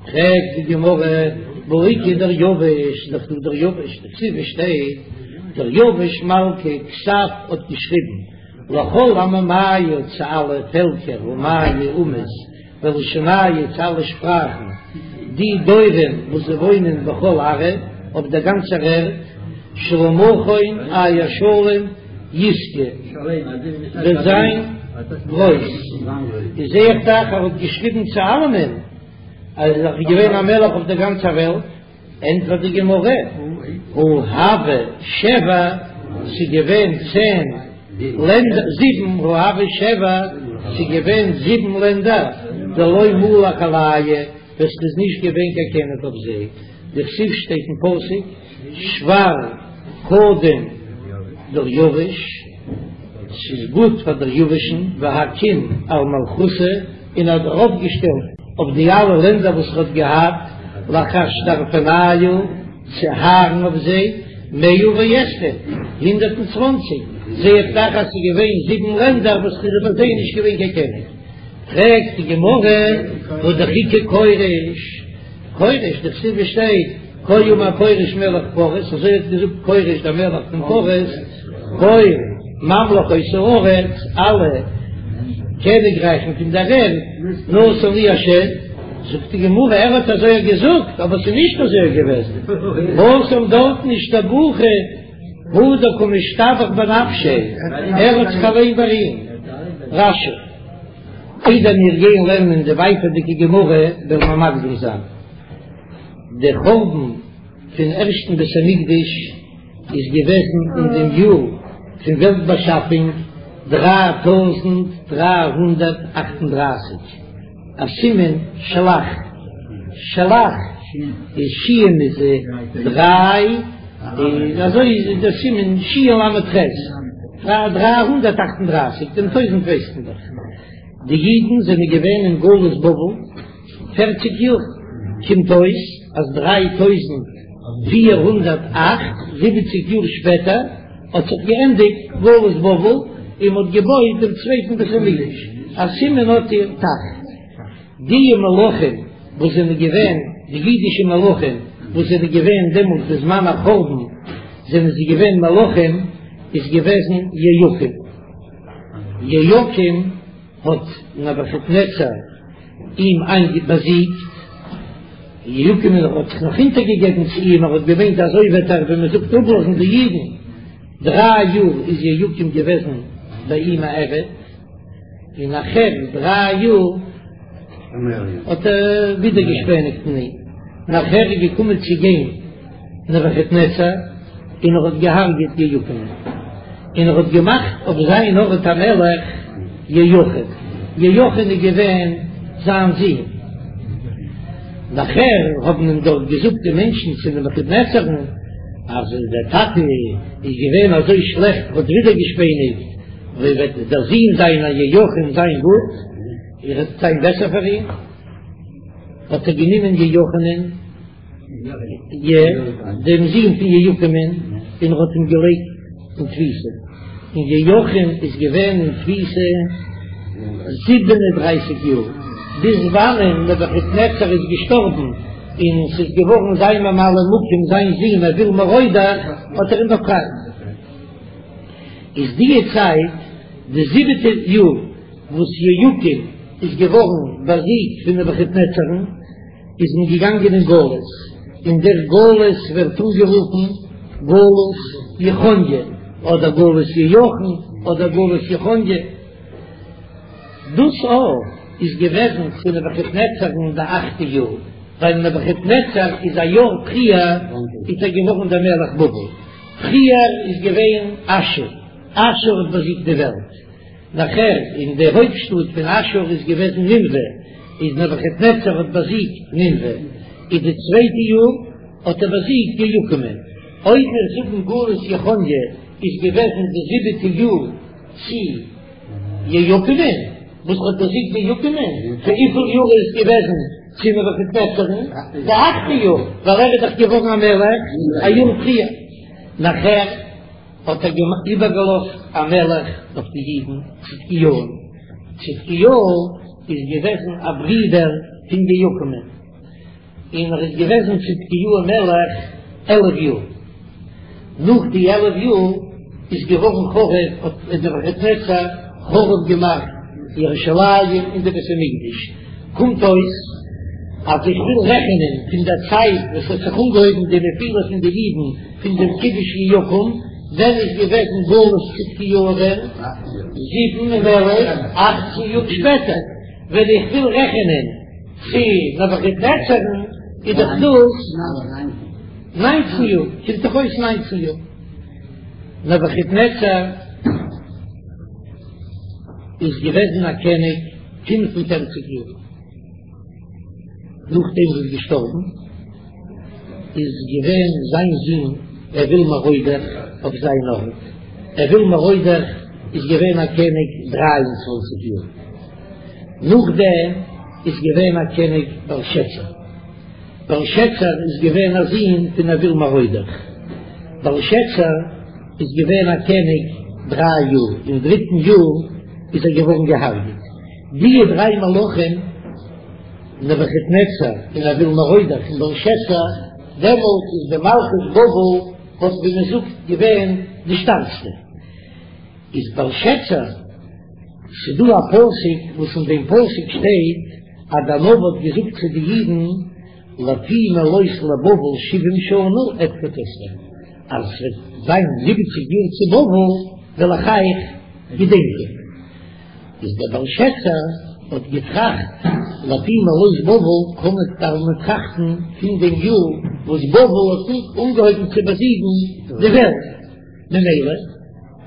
פרעגט די גמרא, והא איכא דריוש, דאך דא דריוש, דכתיב עס שטייט, דריוש מלכא כתב האט געשריבן, לכל עממיא צו אלע פעלקער אומיא אומות ולשוניא צו אלע שפראכן, די דורין וואס זיי וואוינען בכל ארעא אויף דער גאנצער ערד, שלמכון אייער שלום ישגא וועט זיין גרויס. איז זע איך דאך ער האט געשריבן צו אלעמען אז ער איז געווען א מלך אויף דער גאנצער וועלט. ענטפערט די גמרא, הא הוו שבע, ס'איז געווען צען לענדער, זיבן, הא הוו שבע, ס'איז געווען זיבן לענדער, דלא מלך עלייהו, וואס ס'איז נישט געווען קיין קעניג אויף זיי, דכתיב שטייט אין פסוק, שבר קדם דריוש, ס'איז גוט פאר דריוש'ן, והקים על מלכותא, און האט ארויפגעשטעלט אויף די אלע לענדער וואס ער האט געהאט, לאחשדרפנייהו, צו הארן אויף זיי, מאה ועשרים, 120, זע איך דאך אז ס'איז געווען זיבן לענדער וואס ס'איז איבער זיי נישט געווען קיין קעניג. פרעגט די גמרא, והא דאך איכא כורש, כורש, דכתיב עס שטייט, כה אמר כורש מלך פרס, אזוי האט געזאגט כורש דער מלך פון פרס, כל ממלכות הארץ, אלע קעניגרייכן פון דער ערד, נתן לי השם, זאגט די גמרא, ער האט אזוי געזאגט, אבער ס'איז נישט אזוי געוועזן, התם דארטן אשתבוחי הוא דקא משתבח בנפשיה, ער האט זיך אליין בארימט. רש"י, איידער מיר גייען לערנען די ווייטערדיגע גמרא וועלן מיר מקדים זיין. דער חורבן פון ערשטן בית המקדש איז געוועזן אין דעם יאר פון וועלט באשאפונג 3338, א סימן של"ח, של"ח איז שין איז דריי, איז אזוי איז דער סימן שין למד חית, 338, דעם טויזנט ווייסט מען דאך. די אידן זענען געווען אין גלות בבל פערציג יאר, קומט אויס אז 3478 יאר שפעטער האט זיך געענדיגט גלות בבל און מען האט געבויט דעם צווייטן בית המקדש, א סימן האט איר ת"ח. די מלכים וואס זענען געווען די אידישע מלכים וואס זענען געווען דעמאלט בזמן החורבן זענען זיי געווען מלכים איז געוועזן יהויקים. יהויקים האט נבוכדנצר אים באזיגט, יהויקים האט זיך נאך אונטערגעגעבן צו אים, ער האט געמיינט אזוי וועט ער ווי מען זאגט אפלאזן די אידן, דריי יאר איז יהויקים געוועזן ביי אים א עבד, און נאכער דריי יאר האט ער ווידערגעשפעניגט אין אים, נאכער איז געקומען צו גיין. נבֿוכדנצר, און ער האָט געהרגעט יהויקימען, און ער האָט געמאַכט אויף זײַן אָרט אַ מלך יהויכין. יהויכין איז געווען זײַן זון. נאַכער האָבן אים דאָרט געזאָגט די מענטשן צו נבֿוכדנצרן, אַז דער טאַטע איז געווען אַזוי שלעכט, האָט ווידערגעשפּעניקט, ווי וועט דער זון זײַנער יהויכין זײַן גוט, ער וועט זײַן בעסער פֿאַר אים? האָט ער גענומען יהויכינען. י, דעם זון פון יהויקימען, און ער האט אים געלייגט אין תפיסה, און יהויכין איז געווען אין תפיסה 37 יאר, ביז וואנען נבוכדנצר איז געשטארבן, און ס'איז געווארן זיין ממלא מקום זיין זון אויל מרודך, האט ער אים באפרייט. איז די צייט די זיבעטע יאר וואס יהויקים איז געווארן באזיגט פון נבוכדנצרן, איז מען געגאנגען אין גלות, און דער גלות ווערט אנגערופן גלות יכניה, אדער גלות יהויכין, אדער גלות יכניה. דאס אויך איז געוועזן צו נבוכדנצר'ן די אכטע יאר, ווייל נבוכדנצר איז א יאר פריער איז ער געווארן דער מלך בבל, פריער איז געווען אשור, אשור האט באזיגט די וועלט. נאכער אין די הויפט שטאט פון אשור איז געוועזן נינוה, איז נבוכדנצר האט באזיגט נינוה, איז די צווייטע יאר האט ער באזיגט יהויקימען, אויב מיר זאגן גלות יכניה איז געוועזן די זיבעטע יאר צו יהויקימען, וואס האט באזיגט יהויקימען, צו וויפיל יאר איז געוועזן צו נבוכדנצר'ן? די אכטע יאר, ווייל ער איז דאך געווארן א מלך א יאר פריער, נאכער. האט ער איבערגעלאזט א מלך אויף די אידן צדקיהו, צדקיהו איז געוועזן א ברודער פון יהויקים'ן, און ער איז געוועזן צדקיהו מלך 11 יאר, נאך די 11 יאר איז געווארן חרוב, האט נבוכדנצר חרוב געמאכט ירושלים און די בית המקדש, קומט אויס אז איך וויל רעכענען פון דער צייט וואס האט זיך אנגעהויבן די נפילה פון די אידן פון דעם כיבוש יהויקים, ווען איז געוועזן גלות צדקיהו ווען? זיבן און עלף, אכצן יאר שפעטער, ווען איך וויל רעכענען צו נבוכדנצר'ן איז דאך דאס ניינצן יאר, קומט דאך אויס ניינצן יאר. נבוכדנצר איז געוועזן א קעניג 45 יאר, נאכדעם וואס איז געשטארבן איז געווען זיין זון אויל מרודך אויף זיין ארט, אויל מרודך איז געווען א קעניג 23 יאר, נאכדעם איז געווען א קעניג בלשאצר, בלשאצר איז געווען א זון פון אויל מרודך, בלשאצר איז געווען א קעניג דריי יאר, אין דריטן יאר איז ער געווארן געהארגעט. די דריי מלכים, נבוכדנצר און אויל מרודך און בלשאצר, דעמאלט איז די מלכות בבל האט ווי מען זאגט געווען די שטארקסטע. איז בלשאצר, ס'דא א פסוק וואס אין דעם פסוק שטייט אז דער נביא האט געזאגט צו די אידן לפי מלאות לבבל שבעים שנה אפקוד אתכם, אז עס וועט זיין זיבעציג יאר צו בבל וועל איך אייך געדענקען. איז דער בלשאצר האט געטראכט לפי מלאות בבל קען מען דארף מען טראכטן פון דעם יאר וואס בבל האט אנגעהויבן צו באזיגן די וועלט, ממילא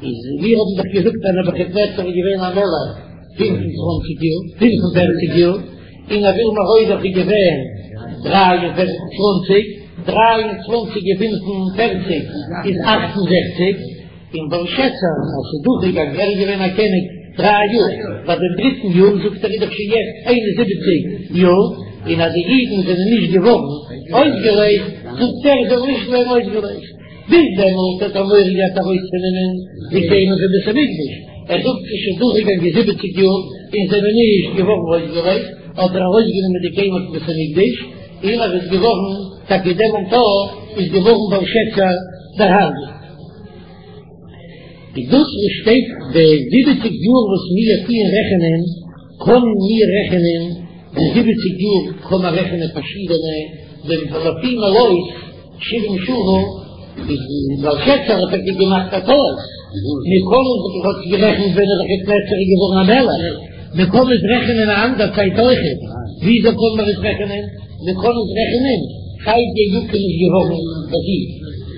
איז מיר האבן דאך געזאגט אז נבוכדנצר איז געווען א מלך 25 יאר, 45 יאר, און אויל מרודך איז געווען 23, 23 און 45 איז 68, און בלשאצר אז ס'איז דורכגעגאנגען, ער איז געווען א קעניג דריי יאר, ביי דעם דריטן יאר זאגט ער איז דאך שוין יעצט 71 יאר, און אז די אידן זענען נישט געווארן אויסגעלייזט, זאגט ער זאל נישט ווערן אויסגעלייזט. ביז דעמאלט האט ער מורא געהאט ארויסצונעמען די כלים פון בית המקדש, ער זאגט ס'איז שוין דורכגעגאנגען זיבעציג יאר און זענען נישט געווארן אויסגעלייזט, האט ער ארויסגענומען די כלים פון בית המקדש, און ער איז געווארן, טאקע דעמאלט איז געווארן בלשאצר דערהרגעט. איז דאס וואס שטייט די זיבעציג יאר וואס מיר טוען רעכענען, קענען מיר רעכענען די זיבעציג יאר קען מען רעכענען פארשידענע, דעם לפי מלאות שבעים שנה איז בלשאצר האט טאקע געמאכט א טעות, מיר קענען זיך האט גערעכנט ווען נבוכדנצר איז געווארן א מלך, מען קען עס רעכענען א אנדער צייט אויכעט, וויאזוי קען מען עס רעכענען? מען קען עס רעכענען צייט יהויקים איז געווארן באזיגט,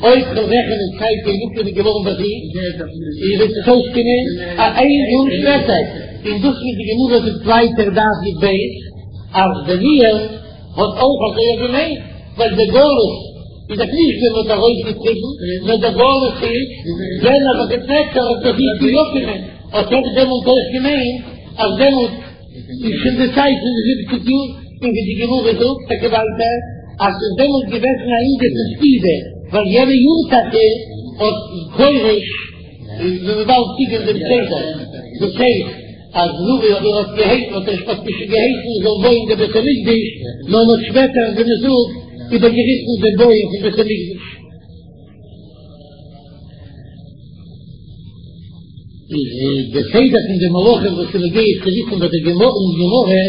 אויב כ'וועל רעכענען צייט יהויקים איז געווארן באזיגט, איז וועט עס אויסקומען א איין יאר שפעטער, און דאס וואס די גמרא זאגט ווייטער דף י"ב אז דניאל האט אויך אזוי געמיינט, ווייל די גלות איז דאך נישט ווען מ'האט ארויסגעטריבן, נאר די גלות איז ווען נבוכדנצר האט באזיגט יהויקים'ען, האט ער דעמאלט אויך געמיינט אז דעמאלט איז שוין די צייט פון די זיבעציג יאר, און ווי די גמרא זאגט טאקע ווייטער אז ס'איז דעמאלט געוועזן א ענין פון ספידה, ווייל יענע יאר טאקע האט כורש, ווי מ'וועט באלד קוקען דעם סדר, דאס הייסט אז נאר ער האט געהייסן האט ער האט נישט געהייסן מען זאל בויען די בית המקדש, נאר מ'האט שפעטער ווי מ'זאגט איבערגעריסן דעם בויען פון בית המקדש. איז די סדר פון די מלכים וואס איז נוגע צו וויסן ביי די גמרא אין גמרא,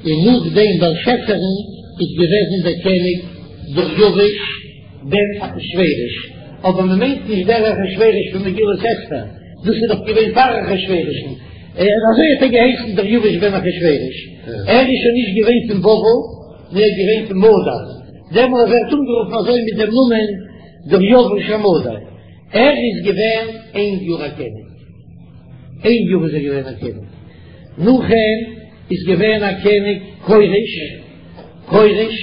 און נאך דעם בלשאצר'ן איז געוועזן דער קעניג דריווש בן אחשורוש, אבער מען מיינט נישט דער אחשורוש פון מגילת אסתר, דאס איז דאך געווען פאר אחשורוש'ן, אזוי האט ער געהייסן דריווש בן אחשורוש, ער איז שוין נישט געווען פון בבל, נאר ער איז געווען פון מדי, דעמאלט ווערט אנגערופן אזוי מיט דעם נאמען דריווש המדי. ער איז געווען איין יאר א קעניג, איין יאר איז ער געווען א קעניג, נאך אים איז געווען א קעניג כורש, כורש,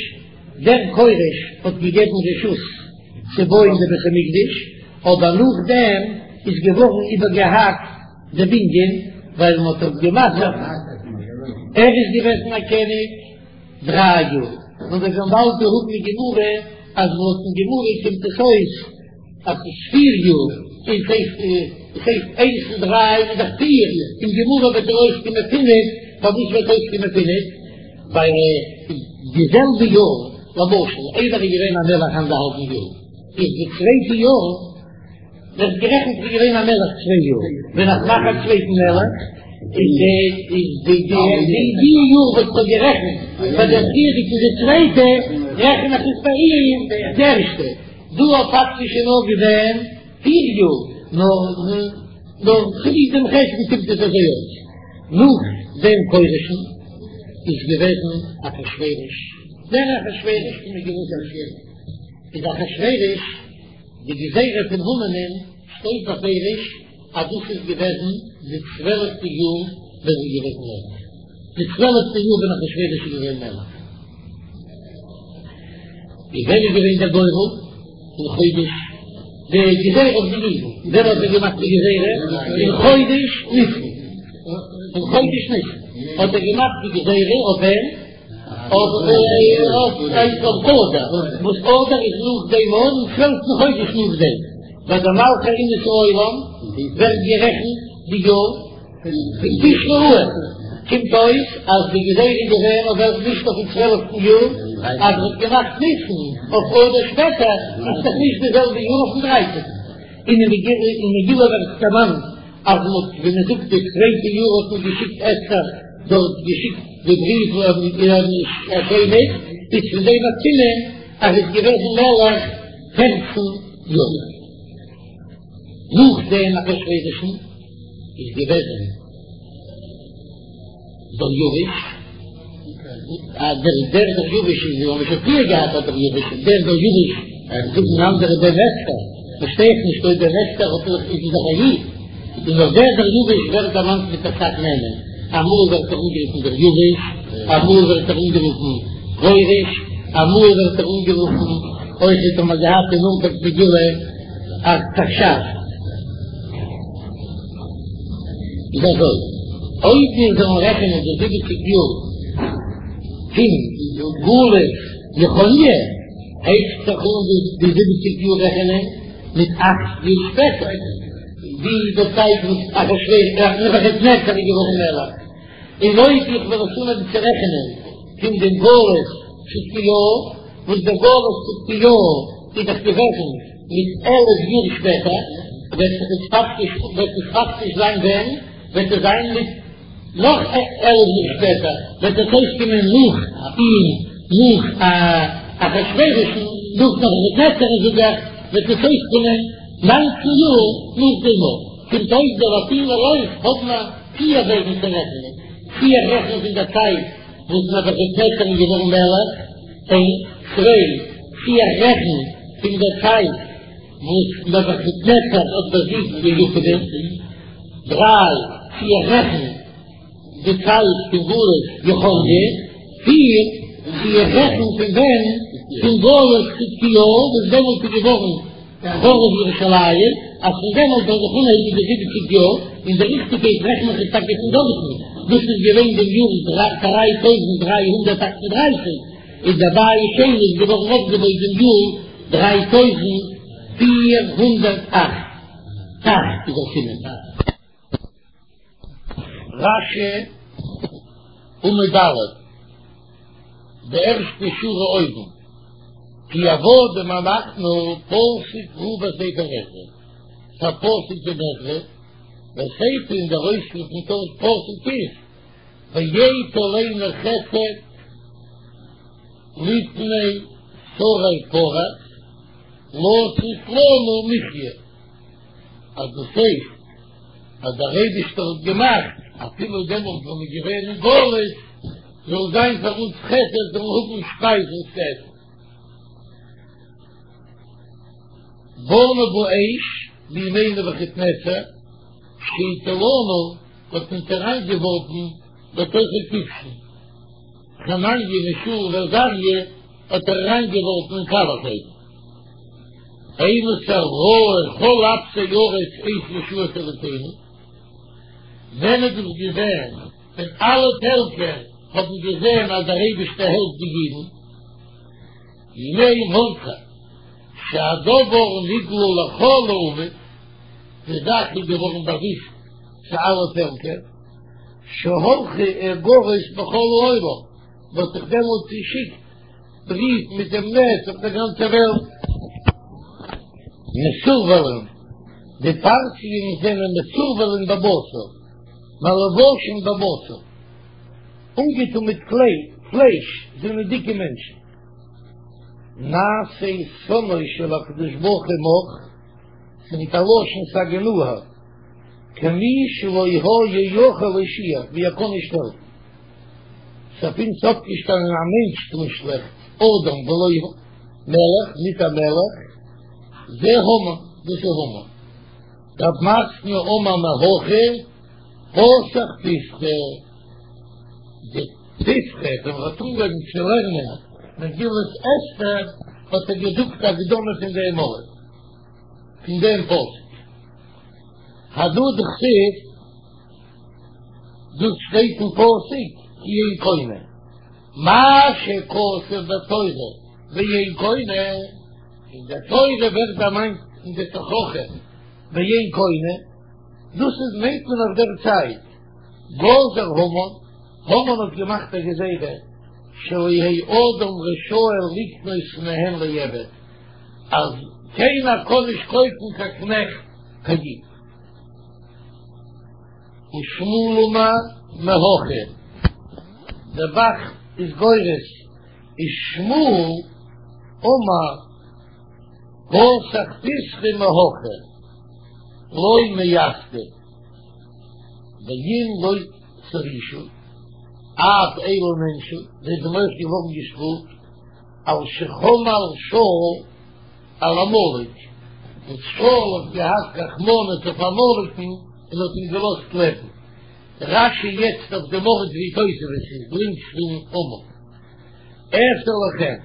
דער כורש האט געגעבן רשות צו בויען די בית המקדש, אבער נאכדעם איז געווארן איבערגעהאקט די בנין, ווייל מען האט דארט געמאכט, ער איז געוועזן א קעניג דריי יאר, און מיר וועלן באלד האבן אין גמרא אז לויטן גמרא קומט עס אויס. אז ס'איז פיר יאר. און ס'הייסט ס'הייסט איינס און דריי איז דאך פיר, אין גמרא וועט ער אויסקומען פינף, פארוואס וועט אויסקומען פינף? ווייל די זעלבע יאר, למשל איידער איז געווען א מלך אנדערהאלבן יאר, איז די צווייטע יאר ווערט גערעכנט ווי געווען א מלך צוויי יאר, ווען איך מאך א צווייטן מלך איז די איז די די די יאר וואס כ'האב גערעכנט פאר דער פריערדיגן די צווייטע, רעכן איך עס ביי אים די ערשטע, דא האט פאקטיש איז נאר געווען פיר יאר, נאר נאר צוליב דעם חשבון קומט עס אזוי אויס. נאך דעם כורש'ן איז געוועזן אחשורוש, דער אחשורוש פון מגילת אסתר איז אחשורוש, די גזירה פון המן'ען שטייט בפירוש אז דאס איז געוועזן די צוועלפטע יאר ווען ער איז געוועזן מלך, די צוועלפטע יאר ווען אחשורוש איז געווען מלך. איז ווען איז געווען דער גורל? אין חודש די גזירה אויף די אידן, ווען האט ער געמאכט די גזירה? אין חודש ניסן, אין חודש ניסן האט ער געמאכט די גזירה אויף וועם? אויף אדר, וואס אדר איז נאך דעם און צוועלפטן חודש נאך דעם, ביי די מלכי אומות העולם ווערט גערעכנט די יאר פון תשרי אן, קומט אויס אז די גזירה איז געווען אויף וועלכן נישט אויפן צוועלפטן יאר, אז מ'האט געמאכט ניסן אויף אדר שפעטער, איז דאך נישט די זעלבע יאר אויפן דרייצענטן. און אין מגילה ווערט דערמאנט אז מ'האט ווי מ'זאגט די צווייטע יאר האט מען געשיקט אסתר דארט געשיקט די בריוו השנית, איז פון דעם א סימן אז ער איז געוועזן מלך פערצן יאר. נאך דעם אחשורוש'ן איז געוועזן דריווש, דער דער דריווש איז ווי מ'האט שוין פריער געהאט א דריווש, דער דריווש זאגן אנדערע בן אסתר, פארשטיי איך נישט אויב בן אסתר האט ער איז דאך א איד, און נאך דער דריווש ווערט דערמאנט מיט אסאך נעמען, אמאל ווערט ער אנגערופן דריווש, אמאל ווערט ער אנגערופן כורש, אמאל ווערט ער אנגערופן אויך האט מען געהאט אין אנפאנג מגילה ארתחשסתא. איז אזוי, אויב מיר זאלן רעכענען די זיבעציג יאר פון גלות יכניה, הייבט זיך אן די זיבעציג יאר רעכענען מיט אכט יאר שפעטער, ווי די צייט וואס אחשורוש, נבוכדנצר איז געווארן מלך, און אויב איך וועל עס אנהייבן צו רעכענען פון דעם גלות צדקיהו, וואס דער גלות צדקיהו איז דאך געוועזן מיט 11 יאר שפעטער, וועט זיך עס פאקטיש, וועט עס פאקטיש זיין ווען? וועט עס זיין מיט נאך 11 יאר שפעטער, וועט עס אויסקומען נאך אים, נאך אחשורוש'ן, נאך נבוכדנצר'ן זאג איך, וועט עס אויסקומען ניינצן יאר נאך דעם. קומט אויס די לאטינער אויך האבן א פיר וועגן צו רעכענען, צי איך רעכן פון דער צייט וואס נבוכדנצר איז געווארן מלך, איינס, צוויי, צי איך רעכן פון דער צייט וואס נבוכדנצר האט באזיגט די יוונים, דריי, צי איך רעכן די צייט פון גלות יכניה, פיר, צי איך רעכן פון ווען פון גלות צדקיהו וואס דעמאלט איז געווארן חרוב ירושלים, אז פון דעמאלט זאל זיך אנהייבן די זיבעציג יאר, און די ריכטיגקייט רעכן איך עס טאקע פון דארטן, דאס איז געווען דעם יאר 3338, און דער בית שני איז געווארן אויפגעבויט דעם יאר 3408. אכט איז דער סימן. רש"י, עמוד א', די ערשטע שורה אויבן, כי עבדים אנחנו פסוק הוא בספר עזרא, ס'א פסוק אין עזרא, וסיפא און דער אויספיר פון פסוק איז, ויט עלינו חסד לפני שרי פרס, לתת לנו מחיה, אז דאס הייסט אז דער אייבישטער האט געמאכט אפילו דעמאלט ווען מ'איז געווען אין גלות זאל זיין פאר אונז חסד זאלן האבן שפייז און צו עסן. באנו באש בימי נבוכדנצר שהטילנו האט אונז אריינגעווארפן בתוך הכבשן חנניה מישאל ועזריה האט ער אריינגעווארפן אין קאלעך אויוון. אימתי ראו כל אפסי ארץ את ישועת אלוקינו, ווען איז דאס געווען ווען אלע פעלקער האבן געזען אז דער אייבערשטער העלפט די אידן, בימי מרדכי שהדבר נגלה לכל האומות, די זאך איז געווארן באוויסט צו אלע פעלקער, שהלכו איגרות בכל העולם, מען האט זיך דעמאלט צעשיקט בריוו מיט דעם נס אויף דער גאנצער וועלט. מסורבלין, די פרסיים זענען מסורבלין בבשר, מלובשין בבשר, אנגעטון מיט פלייש, זענען דיקע מענטשן. נעשה שונאו של הקדוש ברוך הוא מך, ס'מיט א לשון סגי נהור, כמי שלא היה יכול להושיע, ווי ער קען נישט העלפן. ס'איז אויף אונז אויפגעשטאנען א מענטש טון שלעכטס, אדם ולא מלך, ניט א מלך, זה המן, דאס איז המן. רב מתנה אמר מהכא, פתח פתחא, די פתחא ווען מ'האט אנגעהויבן צו לערנען מגילת אסתר האט ער געזאגט א הקדמה פון דעם ארט, פון דעם פסוק. הדא דכתיב, דאס שטייט אין פסוק כי אין קונה, מה שכתוב בתורה ואין קונה, אין דער תורה ווערט דערמאנט אין די תוכחה ואין קונה, דאס איז מיינט מען אויף דער צייט, גזר המן, המן האט געמאכט א גזירה, שלא יהא אדם רשאי לקנות מהן לעבד, אז קיינער קען נישט קויפן קיין קנעכט קיין איד. ושמואל אמר מהכא, דער ב"ח איז גורס ושמואל אמר פתח פתחא מהכא לא מיסדא ואם לא תורישו אף אלו נענשו, זיי זענען אויך געווארן געשטראפט על שחמל שאול על עמלק, וואס שאול האט געהאט רחמנות אויף עמלק'ן און האט אים געלאזט לעבן. רש"י יעצט אויף דעם ארט ווי תוספות איז, לינקס פון עמוד. אעשה לכם,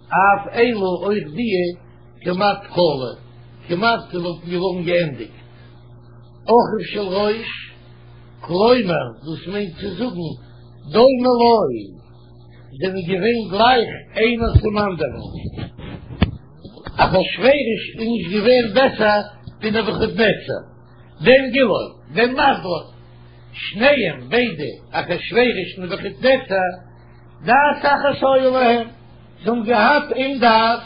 אף אלו אויך דיע כמעט כלו, כמעט זיי וואלטן געווארן געענדיגט. אחיו של ראש, כלומר דאס מיינט צו זאגן דומה לו, זענען געווען גלייך איינער צום אנדערן. אחשורוש איז נישט געווען בעסער ווי נבוכדנצר, בן גילו, בן מזלו, שניהם ביידע אחשורוש און נבוכדנצר, דעת אחת היה להם, זיי האבן געהאט איין דעת,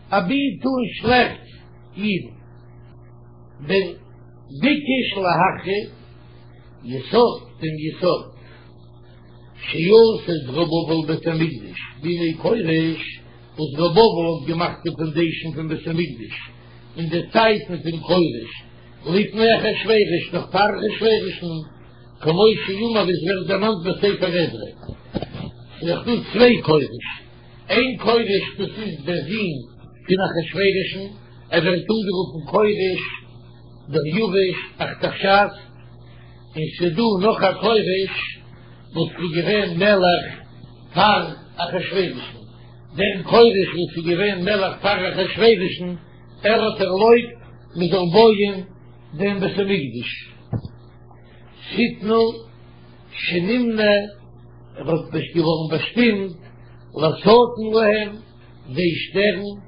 אבי טון שלעכטס אידן. בן ביקש להחריב יסוד דעם יסוד שעשה זרובבל בית המקדש בימי כורש, וואס זרובבל האט געמאכט די פאנדעישן פון בית המקדש אין די צייטן פון כורש, לפני אחשורוש, נאך פאר אחשורוש'ן, כמו שאמור ווי עס ווערט דערמאנט בספר עזרא. ס'איז דאך דא צוויי כורש, איין כורש דאס איז דער זון פון אחשורוש'ן, ער ווערט אנגערופן כורש דריוש ארתחשסתא, און ס'איז דא נאך א כורש וואס איז געווען מלך פאר אחשורוש'ן, דער כורש וואס איז געווען מלך פאר אחשורוש'ן, ער האט ערלויבט מען זאל בויען דעם בית המקדש. שטנה שנמנה, ער האט געווארן באשטימט לשטן להם, זיי שטערן,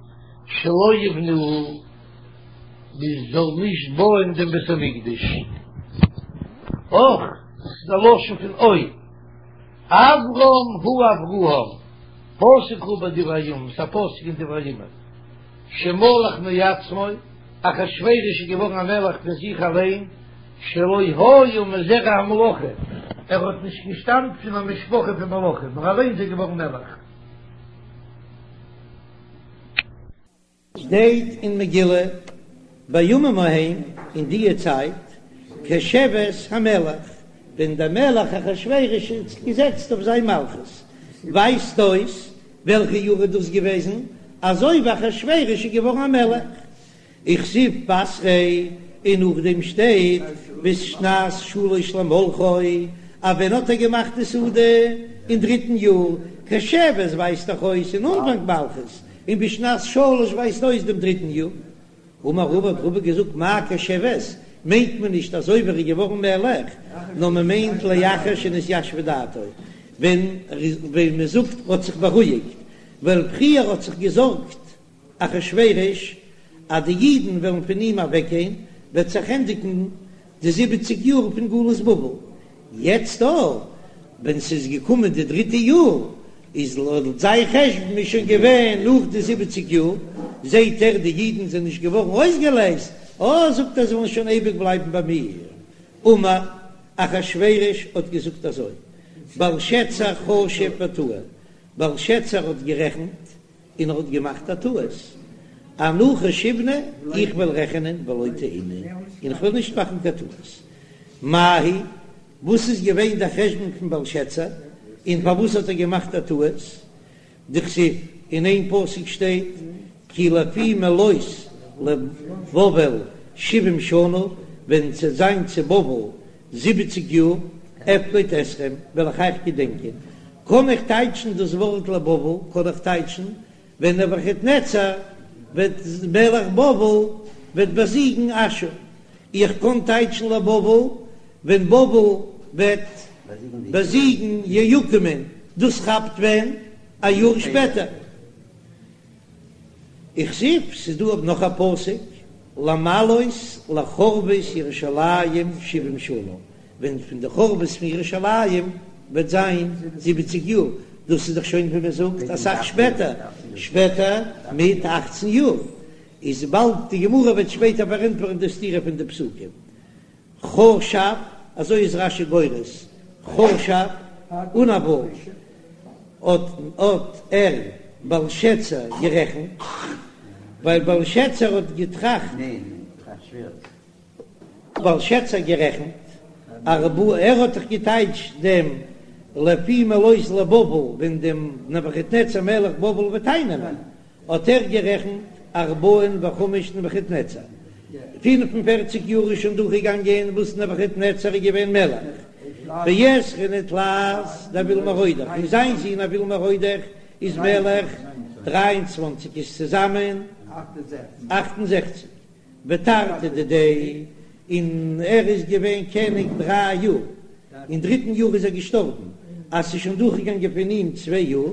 שלא יבנוהו, מען זאל נישט בויען דעם בית המקדש. אך, דאס איז א לשון פון אוי. אברם הוא אברהם, פסוק הוא בדברי הימים, ס'איז א פסוק אין דברי הימים, שמלך מעצמו, אחשורוש איז געווארן א מלך פון זיך אליין, שלא היה מזרע המלוכה, ער האט נישט געשטאמט פון א משפחה פון מלכים, נאר אליין איז ער געווארן מלך. שטייט אין מגילה, בימים ההם, אין דיע צייט, כשבת המלך, ווען דער מלך אחשורוש איז געזעצט אויף זיין מלכות, ווייזט אויס וועלכע יאר איז דאס געוועזן, אזוי ווי אחשורוש איז געווארן א מלך, וכתיב בתריה, און נאכדעם שטייט בשנת שלש למלכו, אז ווען האט ער געמאכט די סעודה? אין דריטן יאר, כשבת ווייזט דאך אויס אין אנפאנג מלכות, און בשנת שלש ווייזט אויס דעם דריטן יאר. אמר רבא האט רבא געזאגט מאי כשבת, מיינט מען נישט אזוי ווי ער איז געווארן מלך, נאר מען מיינט לאחר שנתיישבה דעתו, ווען ווען מען זאגט האט זיך בארואיגט, ווייל פריער האט זיך געזארגט אחשורוש אז די אידן וועלן פון אים אוועקגיין, וועט זיך ענדיגן די זיבעציג יאר פון גלות בבל, יעצט דא ווען ס'איז געקומען די דריטע יאר, איז לויט זיין חשבון איז שוין געווען נאך די זיבעציג יאר, זעהט ער די אידן זענען נישט געווארן אויסגעלייזט, אה זאגט ער זיי וועלן שוין אייביג בלייבן ביי מיר. אמר אחשורוש האט געזאגט אזוי, בלשצר חשב וטעה, בלשצר האט גערעכנט און ער האט געמאכט א טעות, אנא חשיבנא, איך וועל רעכענען ולא טעינא, און איך וועל נישט מאכן קיין טעות. מאי היא, וואס איז געווען דער חשבון פון בלשצר, און פארוואס האט ער געמאכט א טעות? דכתיב, אין איין פסוק שטייט, כי לפי מלאות לבבל שבעים שנה, ווען ס'וועט זיין צו בבל זיבעציג יאר, אפקוד אתכם, וועל איך אייך געדענקען. קען איך טייטשן דאס ווארט לבבל, קען איך טייטשן, ווען נבוכדנצר וועט מלך בבל וועט באזיגן אשור. איך קען טייטשן לבבל, ווען בבל וועט באזיגן יהויקים'ען, דאס כאפט ווען? א יאר שפעטער. וכתיב, ס'איז דא נאך א פסוק, למלאות לחורבות ירושלים שבעים שנה, ווען פון די חורבות פון ירושלים וועט זיין זיבעציג יאר, דאס איז דאך שוין ווי מען זאגט אסאך שפעטער, שפעטער מיט אכצן יאר, איז באלד די גמרא וועט שפעטער פארענטפערן די סתירה פון די פסוקים. חשב, אזוי איז רש"י גורס, חשב, אן א ו', האט האט ער, בלשצר, גערעכנט, ווייל בלשצר האט געטראכט, בלשצר גערעכנט, ארבעה, ער האט דאך געטייטשט דעם לפי מלאות לבבל ווען דעם נבוכדנצר מלך בבל וועט אייננעמען, האט ער גערעכנט ארבעין וחמש דנבוכדנצר, 45 יאר איז שוין דורכגעגאנגען וואס נבוכדנצר איז געווען מלך, ועשרין ותלת דאויל מרודך, און זיין זון אויל מרודך איז מלך 23 איז צוזאמען 68, ותרתי דידיה, און ער איז געווען קעניג דריי יאר, אין דריטן יאר איז ער געשטארבן, אז ס'איז שוין דורכגעגאנגען פון אים צוויי יאר.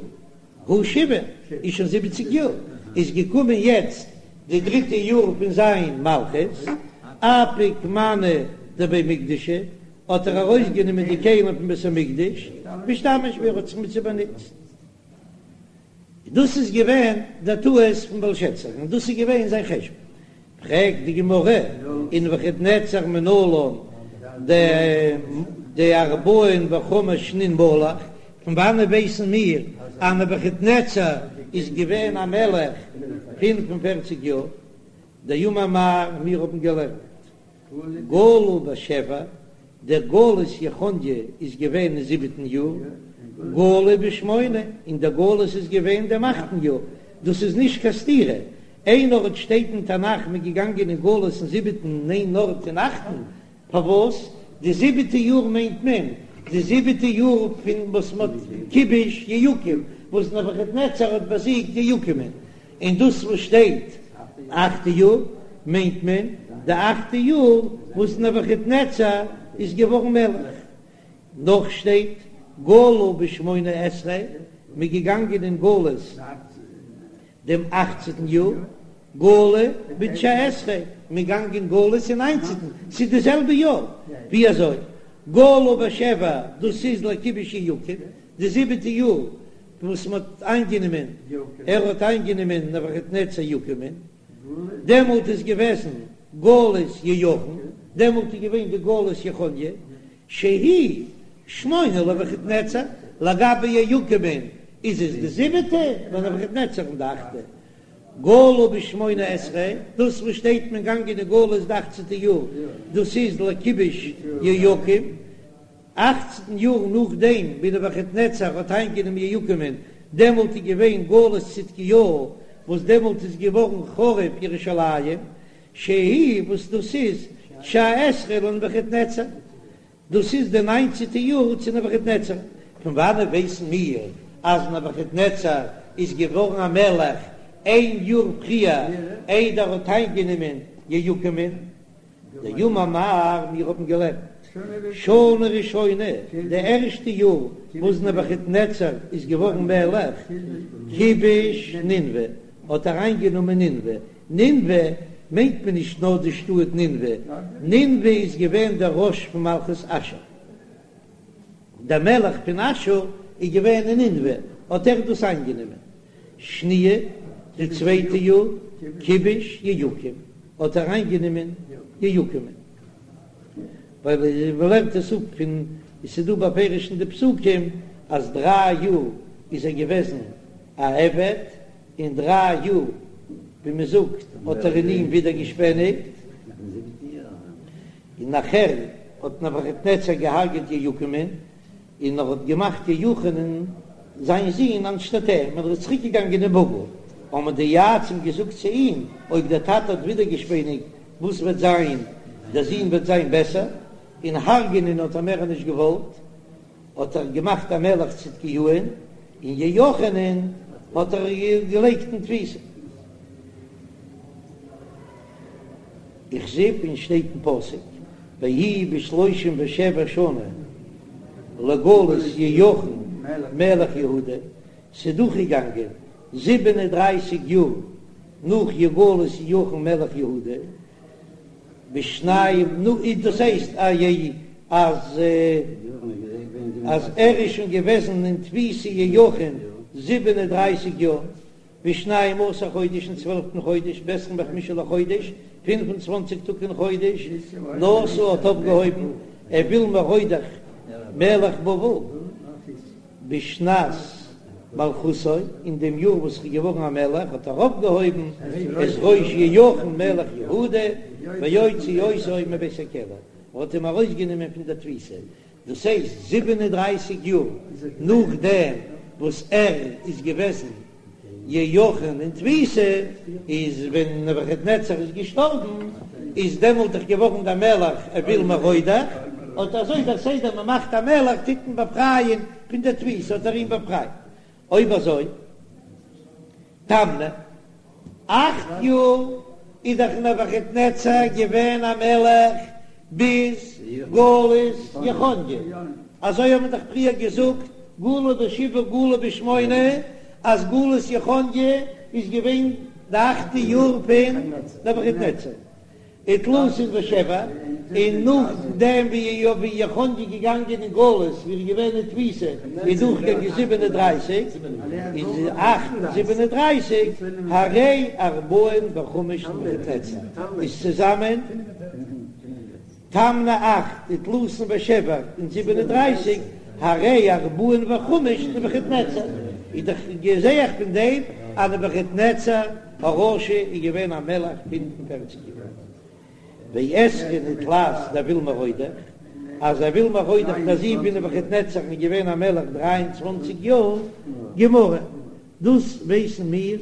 הא שבעים איז שוין זיבעציג יאר, איז געקומען יעצט די דריטע יאר פון זיין מלכות, אפיק מאני דבי מקדשא, האט ער ארויסגענומען די כלים פון בית המקדש, ואשתמש בהו, ער האט זיך מיט זיי באנוצט. דאס איז געווען דער טעות פון בלשצר, און דאס איז געווען זיין חשבון. פרעגט די גמרא, ונבוכדנצר מנלן דארבעין וחמש שנין מלך, פון וואנעט ווייסן מיר אז נבוכדנצר איז געווען א מלך 45 יאר? דאמר מר, מיר האבן געלערנט גלו בשבע, דער גלות יכניה איז געווען אין זיבעטן יאר, גלו בשמונה, און דער גלות איז געווען דעם אכטן יאר, דאס איז נישט קיין סתירה, איין ארט שטייט אין תנך מ'איז געגאנגען אין גלות אין זיבעטן און איין ארט אין אכטן, פארוואס? די זיבעטע יאר מיינט מען די זיבעטע יאר פון וואס מ'האט כיבוש יהויקים, וואס נבוכדנצר האט באזיגט יהויקים'ען, און דאס וואס שטייט אכטע יאר מיינט מען די אכטע יאר וואס נבוכדנצר איז געווארן מלך. נאך שטייט גלו בשמונה עשרה, מ'איז געגאנגען אין גלות דעם אכצעטן יאר, גלו בתשע עשרה, מ'איז געגאנגען אין גלות אין ניינצעטן, ס'איז די זעלבע יאר, ווי אזוי גלו בשבע דאס איז לכיבוש יהויקים, די זיבעטע יאר וואס מען האט איינגענומען, ער האט איינגענומען נבוכדנצר יהויקים'ען, דעמאלט איז געוועזן גלות יהויכין, דעמאלט איז געווען די גלות יכניה, שהיא שמונה לנבוכדנצר, לגבי יהויקים'ען איז עס די זיבעטע, לנבוכדנצר די אכטע, גלו בשמונה עשרה, דאס וואס שטייט מען גאנגען אין גלות די אכצענטע יאר, דאס איז לכיבוש יהויקים. אכצן יאר נאכדעם ווי נבוכדנצר האט איינגענומען יהויקים'ען, דעמאלט איז געווען גלות צדקיהו, וואס דעמאלט איז געווארן חרוב ירושלים, שהיא וואס דאס איז תשע עשרה לנבוכדנצר, דאס איז די ניינצעטע יאר צו נבוכדנצר. פון וואנעט ווייסן מיר אז נבוכדנצר איז געווארן א מלך איין יאר פריער איידער ער האט איינגענומען יהויקים'ען? דאמר מר, מיר האבן געלערנט שנה ראשונה, די ערשטע יאר וואס נבוכדנצר איז געווארן מלך, כיבש נינוה, האט ער איינגענומען נינוה, נינוה. מיינט מען נישט נאר די שטאט נינוה, נינוה איז געווען דער ראש פון מלכות אשור, דער מלך פון אשור איז געווען אין נינוה, האט ער דאס איינגענומען. שניה, די צווייטע יאר, כיבש יהויקים, האט ער איינגענומען יהויקים'ן. ווייל מ'לערנט עס אפ פון, עס איז דא בפירוש אין די פסוקים אז דריי יאר איז ער געוועזן א עבד, און דריי יאר ווי מען זאגט האט ער אין אים ווידערגעשפעניגט, און נאכער האט נבוכדנצר געהארגעט יהויקים'ן, און ער האט געמאכט יהויכין'ען זיין זון אנשטאט אים, און ער איז צוריק געגאנגען אין בבל, האבן די יועצים געזאגט צו אים, אויב דער טאטע האט ווידערגעשפעניגט, וואס וועט זיין, דער זון וועט זיין בעסער, און הרג'ענען האט ער מער נישט געוואלט, האט ער געמאכט א מלך צדקיהו'ן, און יהויכין'ען האט ער געלייגט אין תפיסה. וכתיב און שטייט אין פסוק, ויהי בשלושים ושבע שנה לגלות יהויכין מלך יהודה, ס'איז דורכגעגאנגען זיבן און דרייסיג יאר נאך גלות יהויכין מלך יהודה, בשנים, נו, דאס הייסט אז אז ער איז שוין געוועזן אין תפיסה יהויכין 37 יאר, בשנים עשר חודש אין צוועלפטן חודש, בעשרים וחמשה לחודש, פינף און צוואנציג טאג אין חודש, נשא האט אויפגעהויבן אויל מרודך מלך בבל בשנת מלכותו, אין דעם יאר וואס ער איז געווארן א מלך האט ער אויפגעהויבן את ראש יהויכין מלך יהודה ויוציא אותו מבית הכלא, ער האט אים ארויסגענומען פון דער תפיסה, דאס הייסט 37 יאר נאכדעם וואס ער איז געוועזן יהויכין אין תפיסה, איז ווען נבוכדנצר איז געשטארבן איז דעמאלט דאך געווארן דער מלך אויל מרודך, אט אזוי דער סדר מען מאכט א מלך טוט מען באפרייען פון דער תפיסה האט ער אים באפרייט, אויב אזוי תמני אכט יאר איז דאך נבוכדנצר געווען א מלך ביז גלות יכניה, אזוי האט מען דאך פריער געזאגט גלו בשבעה גלו בשמונה, אז גלות יכניה איז געווען די אכטע יאר פון נבוכדנצר. ותלתין ושבע, און נאכדעם ווי יכניה איז געגאנגען אין גלות ווי ער איז געווען אין תפיסה איז דורכגעגאנגען 37, איז אכט און 37, הרי ארבעין וחמש נבוכדנצר איז צוזאמען תמני אכט ותלתין ושבע און 37, הרי ארבעין וחמש נבוכדנצר, איז דאך זעה איך פון דעם אז נבוכדנצר הרשע איז געווען א מלך פינף און פערציג יאר. ועשרין ותלת דאויל מרודך, אז אויל מרודך דער זון פון נבוכדנצר איז געווען א מלך דריי און צוואנציג יאר, גמרא, דאס ווייסן מיר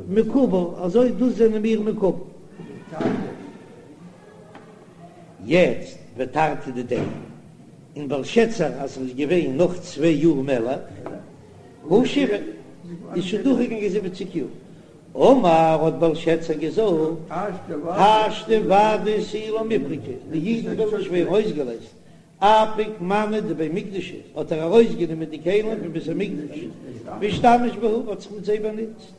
מקובל, אזוי דאס זענען מיר מקובל. יעצט ותרתי דידיה, און בלשצר אז ער איז געווען נאך צוויי יאר מלך, הא שבעין, איז שוין דורכגעגאנגען זיבעציק יאר. אמר האט בלשצר געזאגט, השתא ודאי תו לא מיפרקי, די אידן וועלן נישט ווערן אויסגעלייזט, אפיק מאני דבי מקדשא, האט ער ארויסגענומען די כלים פון בית המקדש, ואשתמש בהו, האט זיך מיט זיי באנוצט.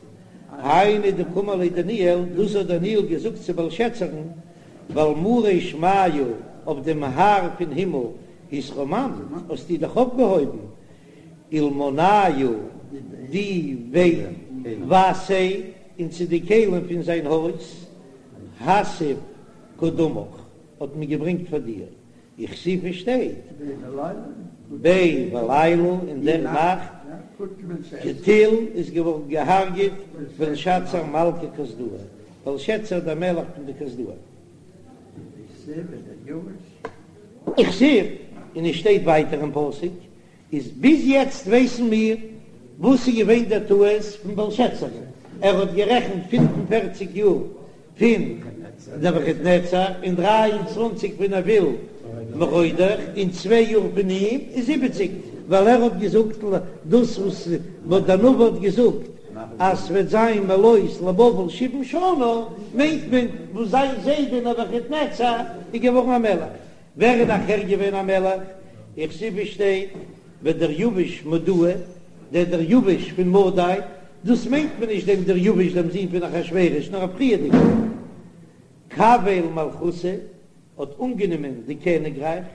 היינו דקאמר ליה דניאל, דאס האט דניאל געזאגט צו בלשצר'ן, ועל מרא שמיא, אויף דעם האר פון הימל, התרוממת, האסטו דיך אויפגעהויבן, ולמנייהו דבי בתיה, און צו די כלים פון זיין הויז, הסב קדמך, האט מען געברענגט פאר דיר, וכתיב עס שטייט, ביה בליליא אין דער נאכט, קטיל איז געווארן געהארגעט בלשצר מלכא כשדאי, בלשצר דער מלך פון די כשדאים. וכתיב, און עס שטייט ווייטער אין פסוק, איז ביז יעצט ווייסן מיר וואס איז געווען דער טעות פון בלשצר, ער האט גערעכנט 45 יאר פון נבוכדנצר און 23 פון אויל מרודך און צוויי יאר פון אים איז זיבעציק, ווייל ער האט געזאגט דאס וואס דער נביא האט געזאגט אז ס'וועט זיין מלאות לבבל שבעים שנה, מיינט מען וואס זיין זיידע נבוכדנצר איז געווארן א מלך. ווער איז נאכער געווען א מלך? וכתיב עס שטייט ודריוש מדאה, דער דריוש פון מדי, דאס מיינט מען נישט דעם דריוש דעם זון פון אחשורוש, נאר א פריערדיגער. קביל מלכותא, האט אנגענומען די קעניגרייך,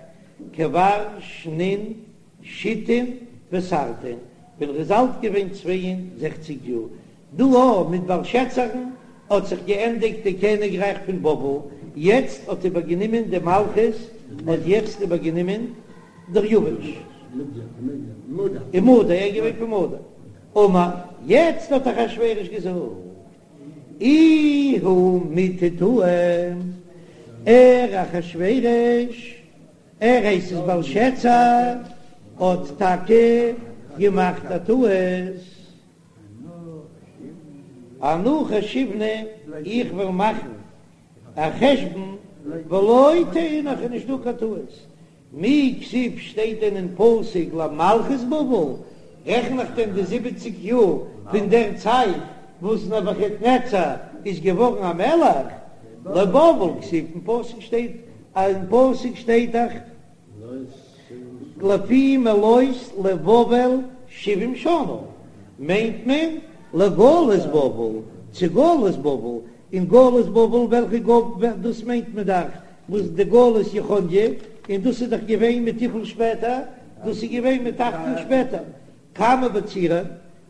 כבר שנין שיתין ותרתין, ווען ער איז אלט געווען 62 יאר, דא א מיט בלשאצרן האט זיך געענדיגט די קעניגרייך פון בבל, יעצט האט איבערגענומען די מלכות האט יעצט איבערגענומען דריווש. ומדי, ער איז געווען פון מדי. אמר, יעצט האט אחשורוש געזאגט, איהו מיטעא טעא, ער אחשורוש, ער הייסט עס בלשאצר, האט טאקע געמאכט א טעות. אנא חשיבנא, איך וועל מאכן א חשבון, ולא טעינא, ס'איז נישט דא קיין טעות. מי כתיב שטייט דען אין פסוק למלכות בבל? רעכן איך דען די זיבעציג יאר פון דער צייט וואס נבוכדנצר איז געווארן א מלך? לבבל כתיב אין פסוק שטייט אין פסוק שטייט דאך לפי מלאות לבבל שבעים שנה מיינט מען לגלות בבל צו גלות בבל, און גלות בבל וועלכע גלות דאס מיינט מען דאך וואס די גלות יכניה, און דאס איז דאך געווען מיט וויפיל שפעטער? דאס איז געווען מיט אכט יאר שפעטער. כמה בצירן,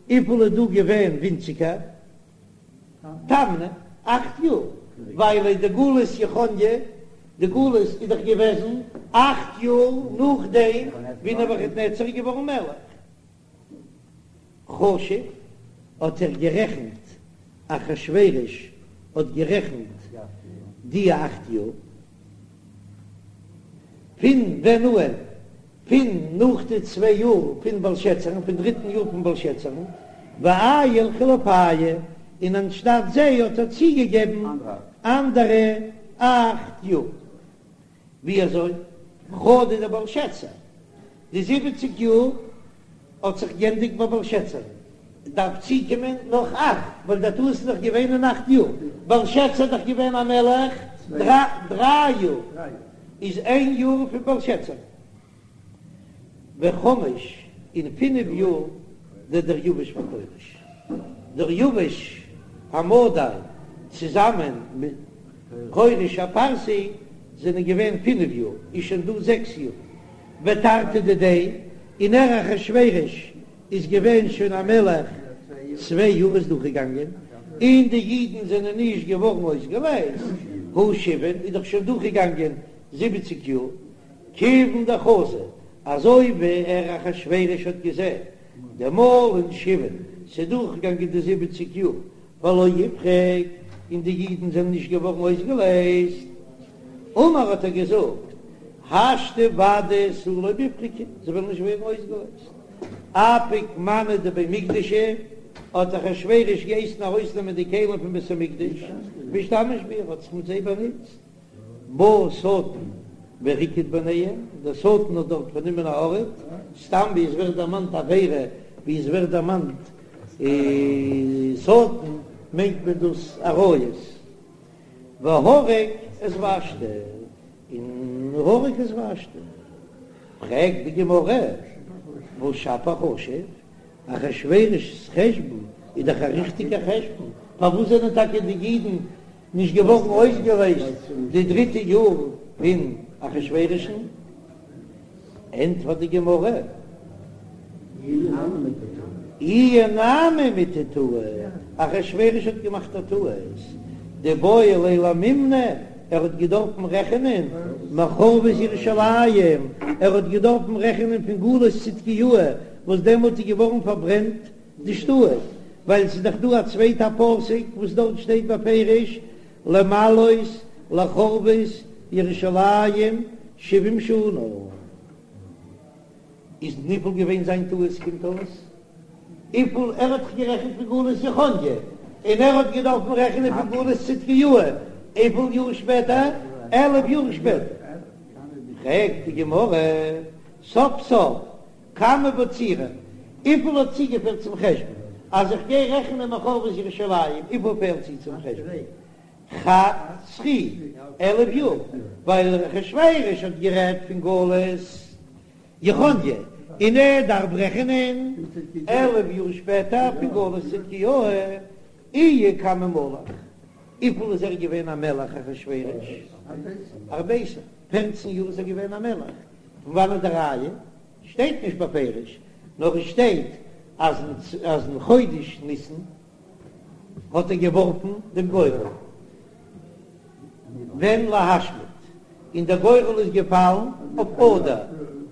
וויפיל איז דא געווען ווינציגער? תמני, אכט יאר, ווייל די גלות יכניה, די גלות איז דאך געוועזן אכט יאר נאכדעם ווי נבוכדנצר איז געווארן מלך. חשב, האט ער גערעכנט, אחשורוש האט גערעכנט די אכט יאר, פון ווען אן? פון נאך די צוויי יאר פון בלשאצרן, פון דריטן יאר פון בלשאצרן, ועייל חילופייהו, און אנשטאט זיי האט ער צוגעגעבן אנדערע אכט יאר. ווי אזוי? חדא דבלשאצר, די זיבעציג יאר האט זיך גענדיגט ביי בלשאצר, דארף צוקומען נאך אכט, ווייל דער טעות איז דאך געווען אין אכט יאר, בלשאצר איז דאך געווען א מלך דריי יאר, איז איין יאר פון בלשאצר. וחמש און פינף יאר דדריוש וכורש, דריוש המדי צוזאמען מיט כורש הפרסי זענען געווען פינף יאר, איז שוין דא זעקס יאר, ותרתי דידיה, און ער אחשורוש איז געווען שוין א מלך צוויי יאר איז דורכגעגאנגען, און די אידן זענען נישט געווארן אויסגעלייזט, הא שבעין איז דאך שוין דורכגעגאנגען זיבעציג יאר, כיוון דחזא, אזוי ווי ער אחשורוש האט געזען דמלין שבעין, ס'איז דורכגעגאנגען די זיבעציג יאר, ולא איפרוק, און די אידן זענען נישט געווארן אויסגעלייזט, אמר האט ער געזאגט, השתא ודאי תו לא מיפרקי, זיי וועלן נישט ווערן אויסגעלייזט. אפיק מאני דבי מקדשא, האט אחשורוש געהייסן ארויסנעמען די כלים פון בית המקדש, ואשתמש בהו, ער האט זיך מיט זיי באנוצט. בא שטן וריקד ביניהם, דער שטן האט דארט פארנומען א ארט, סתם ווי עס ווערט דערמאנט עבירה, ווי עס ווערט דערמאנט שטן, מיינט מען דאס עריות, והרג את ושתי, און הרג את ושתי. פרעגט די גמרא, והא שפיר חשיב, אחשורוש'ס חשבון איז דאך א ריכטיגע חשבון, פארוואס זענען טאקע די אידן נישט געווארן אויסגעלייזט די דריטע יאר פון אחשורוש'ן? ענטפערט די גמרא, איהו נמי מיטעא טעא, אחשרוש האט געמאכט א טעות, דאיבעי ליה למימני, ער האט געדארפן רעכענען מחורבות ירושלים, ער האט געדארפן רעכענען פון גלות צדקיהו וואס דעמאלט איז געווארן פארברענט די שטאט, ווייל ס'איז דאך דא א צווייטע פסוק וואס דארט שטייט בפירוש למלאות לחורבות ירושלים שבעים שנה. איז וויפיל געווען זיין טעות קומט אויס וויפיל ער האט זיך גערעכנט פון גלות יכניה און ער האט געדארפן רעכענען פון גלות צדקיהו וויפיל יאר שפעטער 11 יאר שפעטער פרעגט די גמרא סוף סוף כמה בצירן וויפיל האט צוגעפעלט צום חשבון אז איך גיי רעכענען מחורבות ירושלים וויפיל פעלט צו צום חשבון חד סרי 11 יאר ווייל אחשוורוש האט גערעדט פון גלות יכניה, און ער דארף רעכענען 11 יאר שפעטער פון גלות צדקיהו, איהו כמה מלך. וויפיל איז ער געווען א מלך אחשורוש? ארביסר, פערצן יאר איז ער געווען א מלך, פון וואנעט די ראיה? שטייט נישט בפירוש, נאר עס שטייט אז אז אין חודש ניסן האט ער געווארפן דעם גורל ווען להשמיד, און דער גורל איז געפאלן אויף אדר,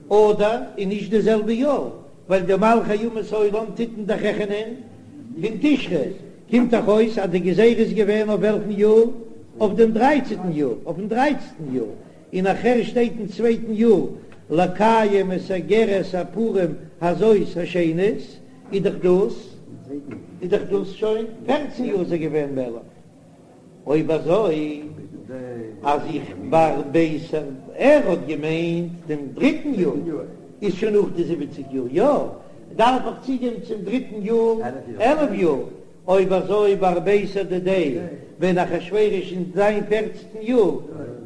אדר איז נישט די זעלבע יאר, ווייל די מלכי אומות העולם טוט מען דאך רעכענען פון תשרי, קומט דאך אויס אז די גזירה איז געווען אויף וועלכן יאר? אויף דעם דרייצעטן יאר, אויפן דרייצעטן יאר, און נאכהער שטייט אין צווייטן יאר לקיים את אגרת הפורים הזאת השנית, איז דאך דאס איז דאך דאס שוין פערצן יאר איז ער געווען מלך, אויב אזוי אז איך בארביסר ער האט געמיינט דעם דריטן יאר איז שוין נאך די זיבעציג יאר, יא דארף איך צוגעבן צום דריטן יאר 11 יאר, אויב אזוי בארביסר דידיה ווען אחשורוש אין זיין פערצנטן יאר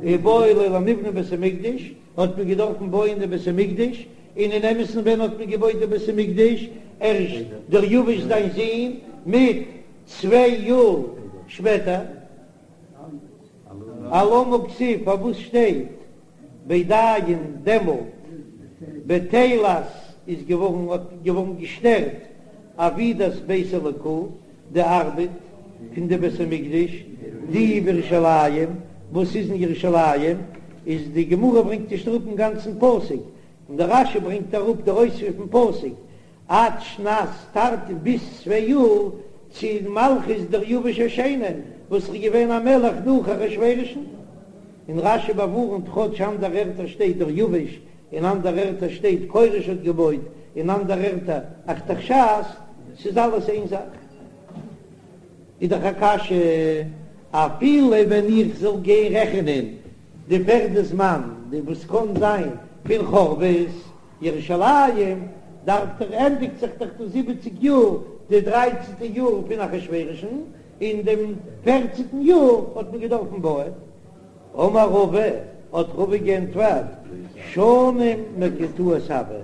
איבעי ליה למיבני בית המקדש האט מען געדארפן בויען די בית המקדש, און אין אמת'ן ווען האט מען געבויט די בית המקדש? ערשט דריווש זיין זון מיט צוויי יאר שפעטער. אלמה כתיב פארוואס שטייט בידין דעמאלט בטלת איז געווארן האט געווארן געשטערט עבידת בית אלוקא די ארבעט פון די בית המקדש די בירושלים וואס איז אין ירושלים איז די גמרא ברענגט נישט אראפ דעם גאנצן פסוק און דער רש"י ברענגט אראפ דער אויספיר פון פסוק עד שנת תרתין ביז צוויי יאר צו מלכות דריווש השני וואס איז געווען א מלך נאך אחשורוש'ן, און רש"י באווארנט כאטש אנדערע ערטער שטייט דריווש און אנדערע ערטער שטייט כורש האט געבויט און אנדערע ערטער ארתחשסתא, ס'איז אלעס איין זאך. איז דאך א קשיא אפילו ווען איך זאל גיין רעכענען די פערדע זמן די וואס קען זיין פון חורבות ירושלים דארף דאך ענדיגט זיך דאך די זיבעציג יאר, די דרייצנטע יאר פון אחשורוש'ן, און דעם פערצנטן יאר האט מען געדארפן בויען. אמר רבא, האט רבא געענטפערט, שנים מקוטעות הוו,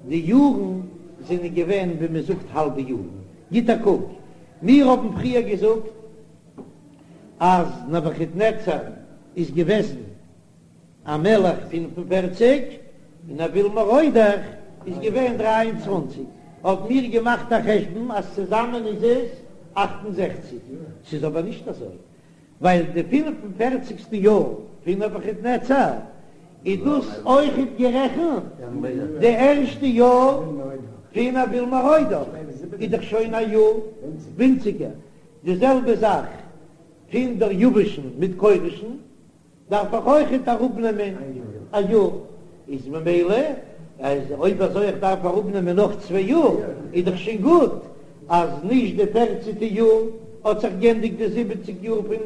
די יארן זענען געווען ווי מען זאגט האלבע יארן. גיט א קוק, מיר האבן פריער געזאגט אז נבוכדנצר איז געוועזן א מלך פינף און פערציג, און אויל מרודך איז געווען דריי און צוואנציג, האבן מיר געמאכט א חשבון אז צוזאמען איז עס 68, ס'איז אבער נישט אזוי, ווייל די פינף און פערציגסטע יאר פון נבוכדנצר איז דאס אויכעט גערעכנט די ערשטע יאר פון אויל מרודך, איז דאך שוין א יאר ווינציגער, די זעלבע זאך פון דריווש'ן מיט כורש'ן. דארף איך אויכעט אראפנעמען א יאר, איז ממילא אז אויב אזוי איך דארף אראפנעמען נאך צוויי יאר, איז דאך שוין גוט אז נישט די פערצנטע יאר האט זיך גענדיגט די זיבעציג יאר פון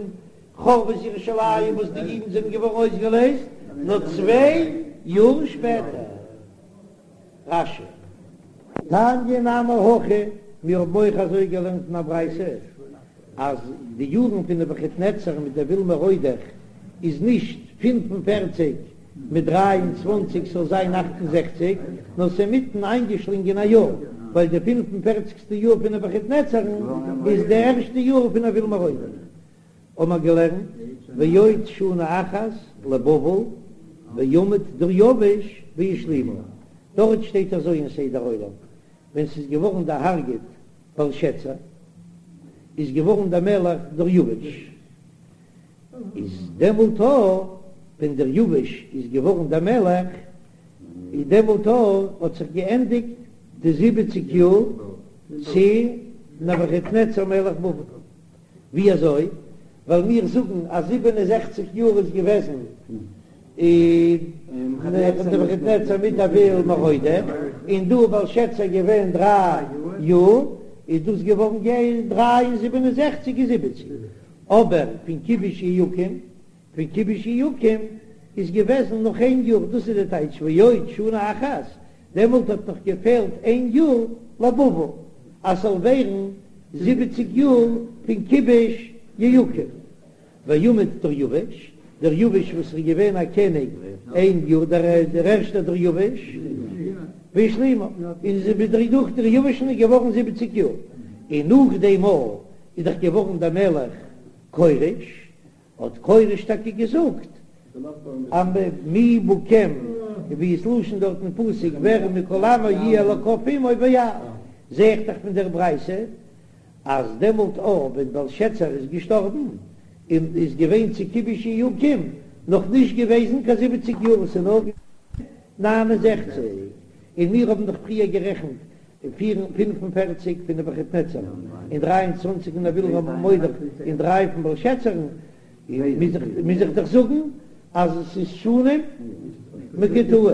חורבות ירושלים וואס די אידן זענען געווארן אויסגעלעזט, נאר צוויי יאר שפעטער. רש"י. תניא נמי הכי, מיר האבן אויך אזוי געלערנט אין א ברייתא, אז די יארן פון נבוכדנצר מיט אויל מרודך איז נישט 45 מיט 23 ס'זאל זיין 68, נאר ס'איז אינמיטן איינגעשלינגען א יאר, ווייל די 45סטע יאר פון נבוכדנצר'ן איז די ערשטע יאר פון אויל מרודך. האבן מיר געלערנט ועוד שנה אחת לבבל ועמד דריווש והשלימה, דארט שטייט אזוי אין סדר עולם, ווען ס'איז געווארן דערהארגעט בלשאצר איז געווארן דער מלך דריווש, איז דעמאלט א ווען דריווש איז געווארן דער מלך איז דעמאלט א האט זיך געענדיגט די זיבעציג יאר צו נבוכדנצר מלך בבל. ווי אזוי? ווייל מיר זאגן אז 67 יאר איז געוועזן נבוכדנצר מיט אויל מרודך, און דא בלשאצר געווען דריי יאר, איז דאס געווארן דריי און 67 איז זיבעציג. אבער פון כיבוש יהויקים, פון כיבוש יהויקים איז געוועזן נאך איין יאר, דאס איז די טייטש ועוד שנה אחת, דעמאלט האט נאך געפעלט איין יאר לבבל אז ס'זאל ווערן זיבעציג יאר פון כיבוש יהויקים. ועמד דריווש, דריווש וואס איז געווען א קעניג איין יאר, דער ערשטער דריווש, והשלימה, און דורך דריווש'ן איז געווארן זיבעציג יאר, און נאך דעם מאל איז דאך געווארן דער מלך כורש. האט כורש טאקע געזאגט אז מי בכם, ווי איז לשון דארט אין פסוק ווער מכל עמו יהיה אלקיו עמו ויעל, זע איך דאך פון דער ברייתא אז דעמאלט אויך ווען בלשאצר איז געשטארבן און איז געווען צו כיבוש יהויקים נאך נישט געוועזן קיין זיבעציג יאר, עס איז נאר געווען 69, און מיר האבן דאך פריער גערעכנט 45 פון נבוכדנצר און 23 פון אויל מרודך און דריי פון בלשאצר'ן, מוז איך דאך זאגן אז עס איז שנים מקוטעות.